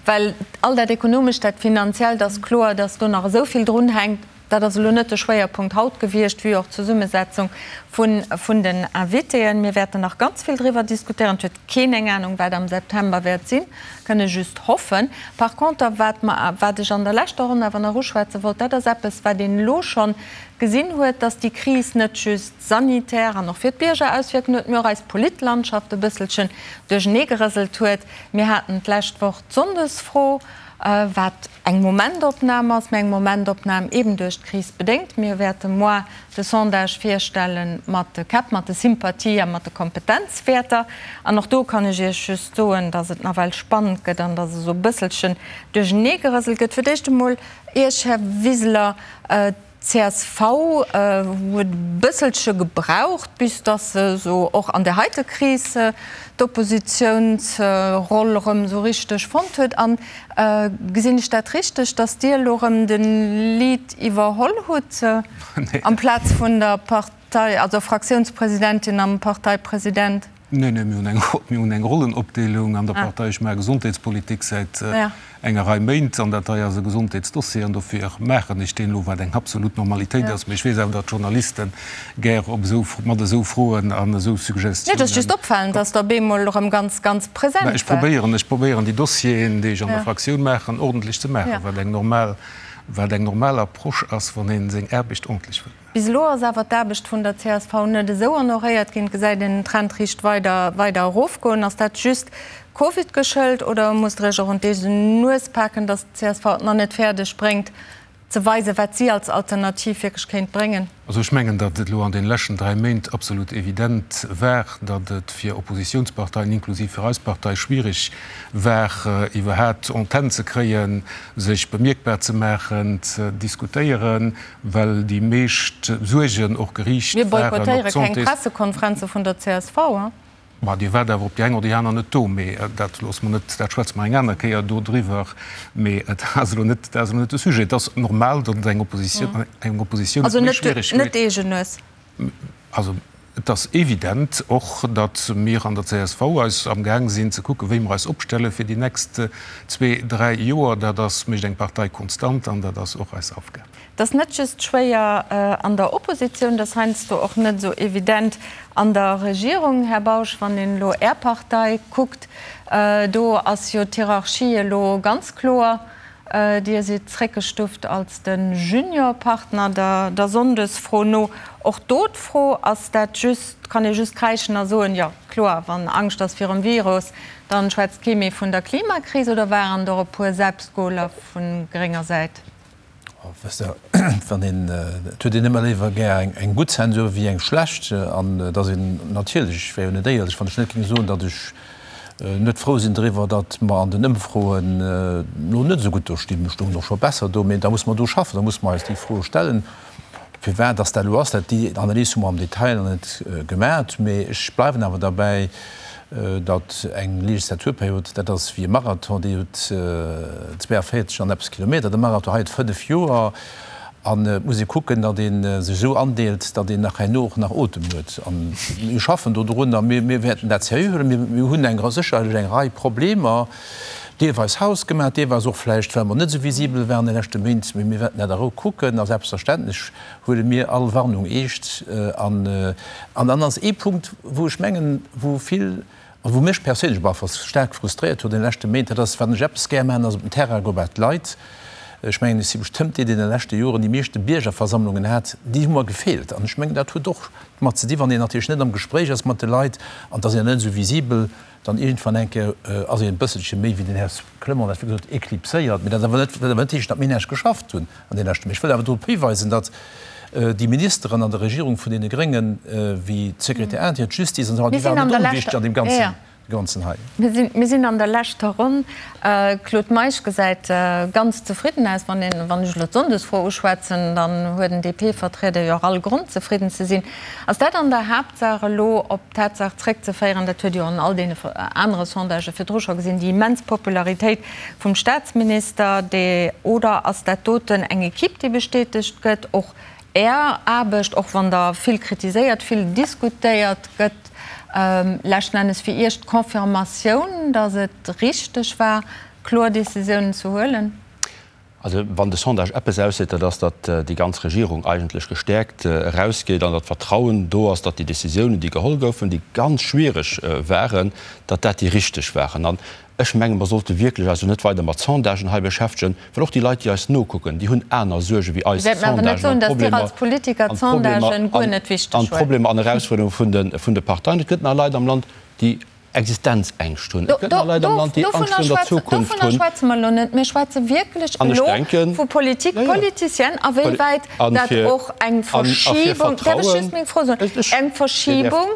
well all dat Ekonomescht, dat Finanziellt ass kloer, dass do nach esou vill drunhänkt. Dat ass elo net de Schwéierpunkt haut gewiescht, wéi och d'Zesummesetzung vun, vun den Invitéen. Mir wäerten nach ganz vill driwwer diskutéieren. Et huet keen eng Anung, wat am September wäert sinn. Kënne just hoffen. Par conter, wat mer, wat ech an der leschter Ronn awer nach uschwätze wollt, dat ass eppes, wat een elo schonn gesinn huet, dass déi Kris net just sanitär an och fir d'Bierger Auswierkungen huet, mee och eis Politlandschaft e bësselchen duercheneegerëselt huet. Mir haten d'lescht Woch d'Sonndesfro, wat eng Momentopnam ass, mee eng Momentopnam eeben duerch d'Kris bedéngt. Mir wäerte moar de Sondage virstelle mat de Käpp, mat de Sympathie a mat de Kompetenzwäerter. An och do kann ech Iech just soen, dass et nawell spannend gëtt an dass esou e bësselchen duercheneegerëselt gëtt. Fir d'éischt emol Iech, Här Wiseler, D'CSV huet e bësselche gebraucht, bis datt se esou och an där heite Kris d'Oppositiounsroll erëm esou richteg fonnt huet. An gesinn ech dat richteg, datt Dir elo erëm de Lead iwwerholl hutt amplaz vun der Partei, also Fraktiounspresidentin am Parteipresident? Neen, neen, mir hunn eng, mir hunn eng Rollenopdeelung an der Partei. Ech maache Gesondheetspolitik säit enger Rei Méint an dat hei ass e Gesondheetsdossier an dofir maachen ech deen elo, wat eng absolut Normalitéit ass. Mee ech weess awer, datt d'Journaliste gär op esou, mat esou Froen an esou Suggestiounen. Nee, et ass just opfalend, datt Der op eemol erëm ganz, ganz present waart. Ech probéieren, ech probéieren déi Dossieren, déi ech an der Fraktioun maachen, ordentlech ze maachen, wat eng normal, wat eng normal Approche ass, wann ee seng Aarbecht ordentlech wëllt maachen. Bis elo ass awer d'Aarbecht vun der csv net esou honoréiert ginn. Et gesäit een den Trend riicht weider weider erofgoen. Ass dat just Covid geschëlt oder musst der Iech och un d'eegen Nues paken, datt d'CSV et nach net fäerdeg bréngt ze weisen, wat si als Alternativ wierklech kéint bréngen? Also ech mengen, datt et elo an deene leschten 3 Méint absolut evident war, datt et fir Oppositionsparteien, inklusiv fir eis Partei, schwierig war, iwwerhaat Antenn ze kréien, sech bemierkbar ze maachen, ze diskutéieren. Well déi meescht Suergen och geriicht waren op d'Santés. Mir boykottéiere keng Pressekonferenze vun der csv. Ma Dir waart awer op déi eng oder déi aner net do. Mee dat loosse mer net, dat schwätze mer eng aner Kéier do driwwer. Mee dat ass elo net, dat ass elo net de Sujet. Et ass normal, datt et eng Oppositioun, eng Oppositioun et méi schwiereg huet. Also net d'eegen Nues. Also et ass evident och, datt mir an der csv eis amgaang sinn ze kucken, wéi mer eis opstelle fir déi nächst zwee, dräi Joer. Dat ass, mécht eng Partei konstant an dat ass och eis Aufgab. Et ass net just schwéier an der Oppositioun, et ass heiansdo och net esou evident an der Regierung. Här Bausch, wann een elo Är Partei kuckt, do ass jo d'Hierarchie elo ganz kloer. Dir sidd zréckgestuft als de Juniorpartner der Sonndesfro no. Och do d'Fro, Ass dat just, kann ee just kräischen a soen, jo kloer, wann Angscht ass virum Virus, dann schwätzt kee méi vun der Klimakris, oder waren der e puer Selbstgoler vu grénger Säit? Wësst Der, wann een, et huet een ëmmer léiwer gär eng gutt Zensur wéi eng schlecht. An et ass een natierlech, ech wär jo net éierlech, wann ech net géing soen, datt ech net frou sinn driwwer, datt mer an den Ëmfroen elo net esou gutt do stinn. Mir stoungen och scho besser do, mee da musse mer do schaffen, da musse mer eis déi Froe stellen, firwat datt dat elo ass. Dat, déi Analys hu mer am Detail nach net gemat, mee ech bleiwen awer derbäi, datt eng Legislaturperiod, dat ass wéi e Marathon, déi huet 42 an eppes Kilometer, de Marathon hei huet 5 Joer, an et muss ee kucken, datt ee sech esou andeelt, datt een nach herno och nach Otem huet. A mir schaffen do drun a mir wäerten dat seriö huelen. Mir hunn eng sécherlech eng Rei Problemer, deelweis hausgemaach, deelweis och vläicht, well mer net esou visibel waren de leschte Méint, mee mir wäerten dat a Rou kucken a selbstverständlech huele mir all Warnung eescht. An dann ass ee Punkt, wou ech mengen, wou vill, a wou mech perséinlech op alle Fall staark frustréiert huet an de leschte Méint, dat ass, wann ech eppes gär maachen, ass op den Terrain goe bei d'Leit. Ech mengen, ech si bestëmmt dee, deen an de leschte Joren déi meeschte Biergerversammlungen hat. Déi hu mer gefeelt. An ech mengen, dat huet och domat ze di wann een natierlech net am Gespréich ass mat de Leit an et ass een net esou visibel, Dann iergendwann eng Kéier ass een e bësselche méi, wéi den Här Clement dat virgesot huet, éclipséiert. Mee dat awer net, wat awer net heescht, datt mir näischt geschafft hunn an deene leschte Méint. Ech wëll awer drop hiweisen, datt déi Ministeren an der Regierung vun deene Gréngen, wéi d'Sécurité intérieure, d'Justice an esou weider, déi waren net onwichtig an deem ganzen, ganzen hei. Mir sinn an der leschter Ronn. Claude Meisch gesäit ganz zefridden aus. Wann een, wann ech elo d'Sonndesfro uschwätzen, dann huet en DP-Vertrieder jo och all Grond zefridden ze sinn. Ass dat an der Haaptsaach elo op d'Tatsaach zréckzeféieren, dat huet jo an all deene anere Sondagë virdru scho gesinn, déi immens Popularitéit vum Staatsminister, dee, oder ass dat doten eng Equipe, déi bestätegt gëtt, och Är Aarbecht, och wann der vill kritiséiert, vill diskutéiert gëtt, leschten Ennes fir Iech d'Confirmatioun, datt et richteg war, kloer Décisiounen ze huelen? Also wann de Sondage eppes ausseet, dat ass, datt déi ganz Regierung eigentlech gestäerkt erausgeet an datt Vertrauen do ass, datt déi Décisiounen, déi geholl goufen, déi ganz schwiereg waren, datt dat déi richteg waren. An ech menge mer sollte wierklech eis elo net weider mat Sondagen hei beschäftegen, well och déi Leit, déi eis nokucken, déi hunn aner Suerge wéi eis Sondagen an d'Problemer an Erausfuerderunge vun de Parteien. Et gëtt nach Leit am Land, déi Existenzängscht hunn. Et gëtt nach Leit am Land, déi Angscht virun der Zukunft hunn. Dovunner schwätze mer elo net. Mir schwätze wierklech elo vu Politik politicienne, a wéi wäit dat och eng Verschibung, däerf ech just meng Fro soen, eng Verschibung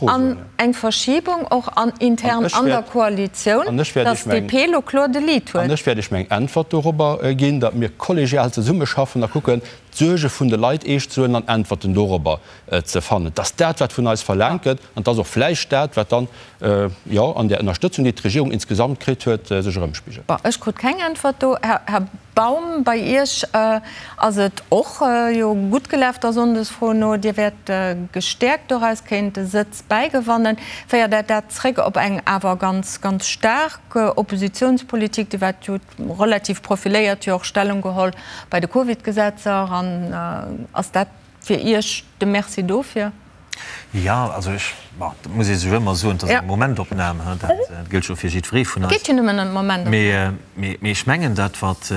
an eng Verschibung och an intern an der Koalitioun, datt d'DP elo kloer de Lead huet. An ech wäert Iech meng Äntwert dorobber ginn, datt mir kollegial zesummeschaffen a kucken, d'Suerge vun de Leit eescht ze huelen an Äntwerten dorobber ze fannen. Et ass dat, wat vun eis verlaangt gëtt, an et ass och vläicht dat, wat dann. jo, an där Ënnerstëtzung, déi d'Regierung insgesamt kritt huet, sech erëmspigelt. Bon, ech krut keng Äntwert do. Här Baum, bei Iech ass et och jo gutt gelaf der Sonndesfro no. Dir wäert gestäerkt doraus kéint e Sëtz bäigewannen. Féiert dat dat zréck op eng awer ganz, ganz staark Oppositionspolitik? Dir waart jo relativ profiléiert, jo och Stellung geholl bei de Covid-Gesetzer. An ass dat fir Iech de Merci dofir? Jo, also ech, bon, dat muss ee sech ëmmer soen, et ass eng Momentopnam, dat gëllt jo fir jiddweree vun eis. Et geet jo nëmmen ëm d'Momentopnam. Mee ech mengen, dat wat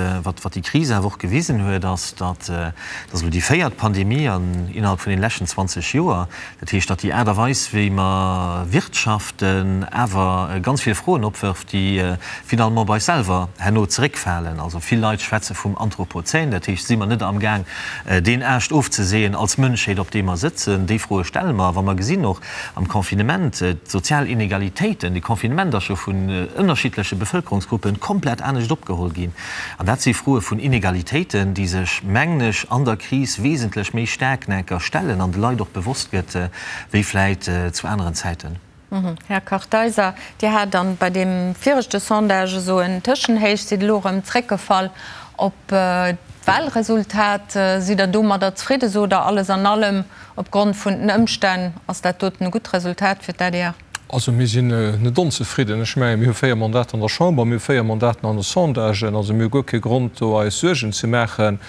déi Kris awer och gewisen huet, ass, datt, dat ass elo déi véiert Pandemie an innerhalb vun deene leschten 20 Joer, dat heescht, datt déi Aart a Weis wéi mer wirtschaften awer ganz vill Froen opwërft, déi finalement bei eis selwer herno zeréckfalen. Also vill Leit schwätze vum Anthropozän, dat heescht, si mer net amgaang deen Aascht ofzeseeën als Mënschheet, op deem mer sëtzen? Déi Froe stelle mer, wa mer gesinn och am Confinement d'sozial Inegalitéiten, de Confinement ass jo vun ënnerschiddleche Bevëlkerungsgruppe komplett anescht opgeholl ginn. An dat si Froe vun Inegalitéiten, déi sech, mengen ech, an der Kris wesentlech méi staark enker stellen an de Leit och bewosst gëtt wéi vläit zu aneren Zäiten. Här Kartheiser, Dir hat dann bei deem viregte Sondage esou en Tëschenhéich, sidd elo erëm zréckgefall op d'Wahlresultat. Sidd Der domadder zefridde? Sot Der, alles an allem, opgrond vun den Ëmstänn ass dat doten e gutt Resultat fir d'ADR? Also mir sinn net onzefridden. Ech mengen, mir hu 4 Mandater an der Chamber, mir hu 4 Mandaten an de Sondagen. Also mir hu guer kee Grond do eis Suergen ze maachen.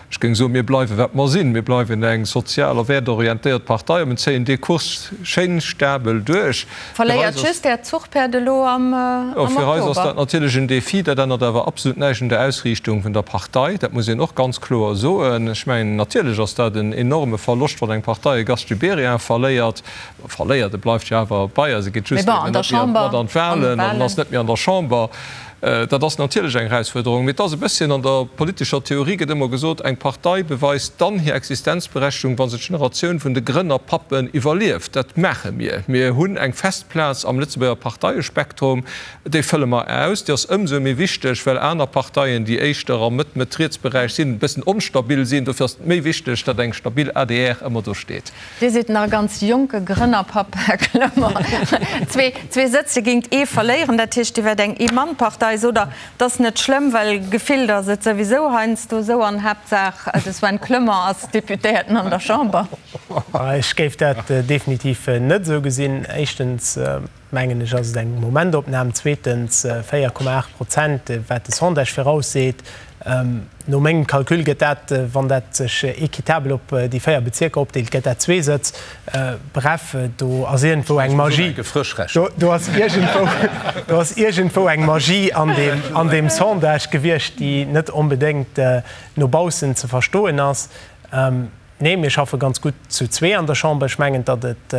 Ech géing soen, mir bleiwe wat mer sinn. Mir bleiwen eng sozial a wäertorientéiert Partei a mir zéien dee Kurs schéin stabel duerch. Verléiert just Äert Zuchpäerd elo am Oktober? Fir eis ass dat natierlech en Defi. Dat ännert awer absolut näischt un der Ausriichtung vun der Partei. Dat muss een och ganz kloer soen. Ech mengen, natierlech ass dat en enorme Verloscht, wann eng Partei e Gast Gibéryen verléiert. Verléiert, e bleift jo awer bei eis, e geet just eben net méi mat an d'Wahlen an ass net méi an der Chamber. Dat ass natierlech eng Erausfuerderung, mee et ass e bësschen, an der politescher Theorie gëtt ëmmer gesot, eng Partei beweist dann hir Existenzberechtigung, wa se d'Generatioun vun de Grënnerpappen iwwerlieft. Dat maache mir. Mir hunn eng fest Plaz am Lëtzebuerger Parteiespektrum, déi fëlle mer aus. Déi ass ëmsou méi wichteg, well aner Parteien, déi éischter am Mëtt-Mëtt-Riets-Beräich sinn, e bëssen onstabil sinn. Dofir ass et méi wichteg, datt eng stabil adr ëmmer do steet. Dir sidd nach e ganz jonke Grënnerpapp, Här Clement. Zwee Sëtze géingt ee verléieren, dat heescht, Dir wäert eng Ee-Mann-Partei. Sot Der, et ass net schlëmm, well gefillt ass et souwisou heiansdo esou an Haaptsaach de Sven Clement ass Deputéierten an der Chamber. Ech géif dat definitiv net esou gesinn. Éischtens mengen ech, ass et eng Momentopnam. Zweetens, 4,8 Prozent, wat de Sondage virausseet, no mengem Calcul gëtt dat, wann dat sech équitabel op déi 4 Bezierker opdeelt, gëtt dat zwee Sëtz. Bref, do ass iergendwou eng Magie, do ass iergendwou, do ass iergendwou eng Magie an deem, an deem Sondage gewiescht, déi net onbedéngt no baussen ze verstoen ass. Nee, mir schaffe ganz gutt zu zwee an der Chamber. Ech mengen, datt et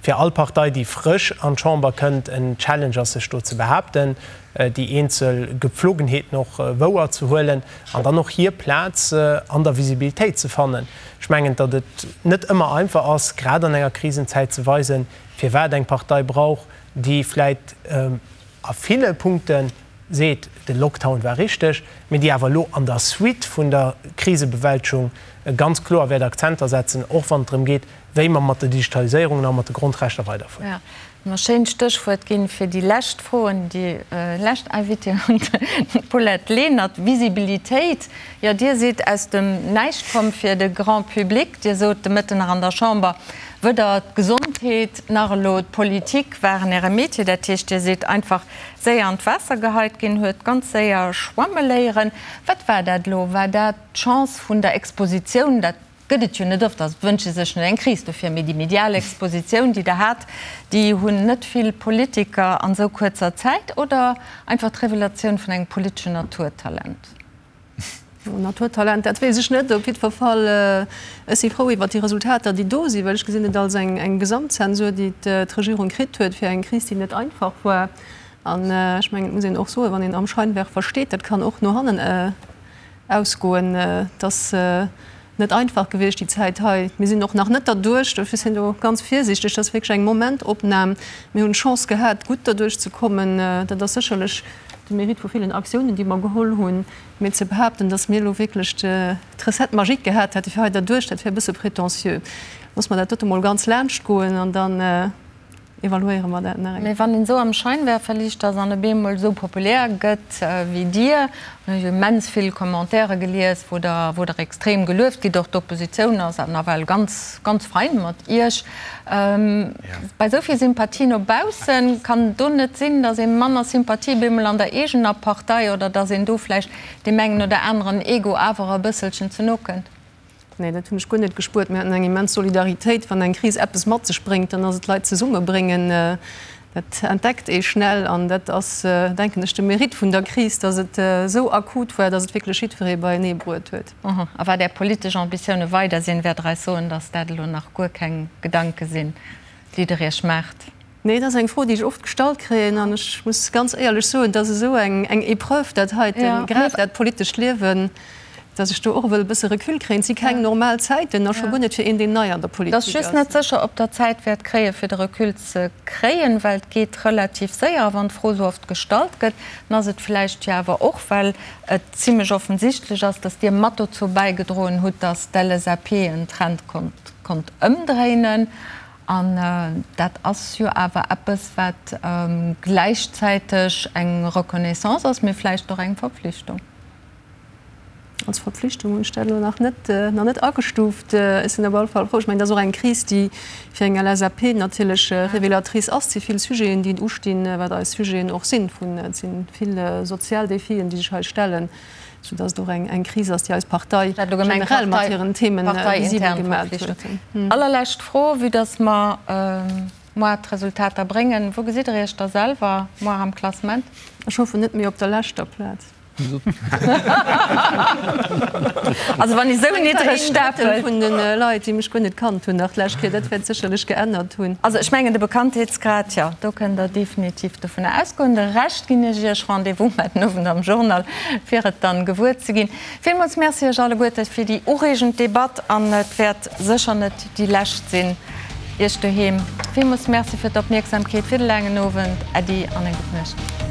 fir all Partei, déi frësch an d'Chamber kënnt, en Challenge ass, sech do ze behaapten, déi eenzel Gepflogenheeten och wouer ze huelen an dann och hir Plaz an der Visibilitéit ze fannen. Ech mengen, datt et net ëmmer einfach ass, grad an enger Krisenzäit ze weisen, firwat eng Partei brauch, déi vläit a ville Punkten seet, de Lockdown war richteg, mee déi awer elo an der Suite vun der Krisebewältegung ganz kloer wäert Akzenter setzen, och wann et drëm geet, wéi mer mat der Digitaliséierung a mat de Grondrechter weiderfueren. Jo, mer schéint Stéchwuert ginn fir déi lescht Fro un déi lescht Invitée, un d'Paulette Lenert. Visibilitéit, jo, Dir sidd aus dem Näischt komm fir de Grand public. Dir sot de Mëtten nach an der Chamber, weder d'Gesondheet nach elo d'Politik waren Äre Metier. Dat heescht, Dir sidd einfach séier an d'Waasser geheit ginn, huet ganz séier schwamme léieren. Wat war dat elo? War dat d'Chance vun der Expositioun? Dat gëtt et jo net oft, also et wënscht ee sech net eng Kris dofir, mee déi medial Expositioun, déi Der hat, déi hunn net vill Politiker an esou kuerzer Zäit, oder einfach d'Revelatioun vun engem politeschen Naturtalent? Naturtalent, dat weess ech net. Op jiddwer Fall, ech si frou iwwert déi Resultater, déi do sinn, well ech gesinn et als eng Gesamtzensur, déi d'Regierung kritt huet fir eng Kris, déi net einfach war. An ech mengen, et muss een och soen, wann een am Scheinwerfer steet, dat kann och no hannen ausgoen. Et ass net einfach gewiescht déi Zäit hei. Mir sinn och nach net derduerch, dofir sinn do ganz virsiichteg. Dat ass wierklech eng Momentopnam. Mir hunn d'Chance gehat, gutt derduerch ze kommen. Dat ass sécherlech de Mérite vu villen Aktiounen, déi mer geholl hunn. Mee ze behaapten, datt mir elo wierklech d'Recette magique gehat hätte fir hei derduerch, dat wär e bësse prétentieux. Loosse mer dat dote mol ganz laanscht goen an dann. evaluéiere mer dat nach eng. Mee wann een esou am Scheinwerferliicht ass an op eemol esou populär gëtt wéi Dir, hunn ech immens vill Commentaire gelies, wou Der, wou Der extrem gelueft gitt, och d'Oppositioun ass nawell ganz, ganz fein mat Iech. Bei esou vill Sympathie no baussen, kann et do net sinn, datt ee manner Sympathie op eemol an der eegener Partei oder datt een do vläicht deem engen oder aneren Ego awer e bësselchen ze no kënnt? Nee, dat hunn ech guer net gespuert. Mir haten eng immens Solidaritéit. Wann eng Kris eppes mat sech bréngt, dann ass et Leit zesummebréngen. Dat entdeckt ee schnell an dat ass, denken ech, de Mérite vun der Kris, datt et esou akut war, datt et wierklech jiddweree beienee bruet huet. A wat Är politesch Ambitioune weider sinn, wäert Der eis soen, datt dat elo nach guer keng Gedanke sinn, déi Der Iech maacht? Nee, dat ass eng Fro, déi ech oft gestallt kréien. An ech muss ganz éierlech soen, et ass esou eng Épreuve, dat heiten, grad dat politescht Liewen, datt ech do och wëll e bësse Recul kréien. Et si keng normal Zäiten a scho guer net fir een, deen nei an der Politik ass. Et ass just net sécher, ob Der Zäit wäert kréien, fir de Recul ze kréien, well et geet relativ séier. A wann d'Fro esou oft gestallt gëtt, dann ass et vläicht jo awer och, well et zimlech offensichtlech ass, datt Dir mat dozou bäigedroen hutt, datt d'LSAP en Trend konnt ëmdréinen. An dat ass jo awer eppes, wat gläichzäiteg eng Reconnaissance ass, mee vläicht och eng Verpflichtung. Als Verpflichtung hunn ech dat elo nach net, nach net agestuuft. Ech sinn op alle Fall frou. Ech mengen, dat ass och eng Kris, déi fir eng LSAP natierlech révélatrice ass. Et si vill Sujeten, déi ustinn, wat eis Sujeten och sinn. Vun, et si vill sozial Défien, déi sech hei stellen. Sou dass et och eng Kris ass, déi eis Partei generell mat hiren Themen visibel gemat huet. Allerlescht Fro, vue dass mer moar d'Resultater bréngen, Wou gesitt Der Iech da selwer moar am Klassement? Ech hoffen net méi op der leschter Plaz. Also wann ee sou niddreg stapelt. Vun de Leit, déi mech guer net kannt hunn nach d'lescht Kéier, dat wäert sécherlech geännert hunn. Also ech mengen de Bekanntheetsgrad, jo, do kënnt Der definitiv dovunner ausgoen. De Rescht ginn ech Iech Rendez-vous mar den Owend am Journal, fir et dann gewuer ze ginn. Villmools Merci Iech alleguerte fir déi ureegend Debatt an et wäert sécher net déi lescht sinn. Iech doheem villmools Merci fir d'Opmierksamkeet, fir de laangen Owend. Äddi an eng gutt Nuecht.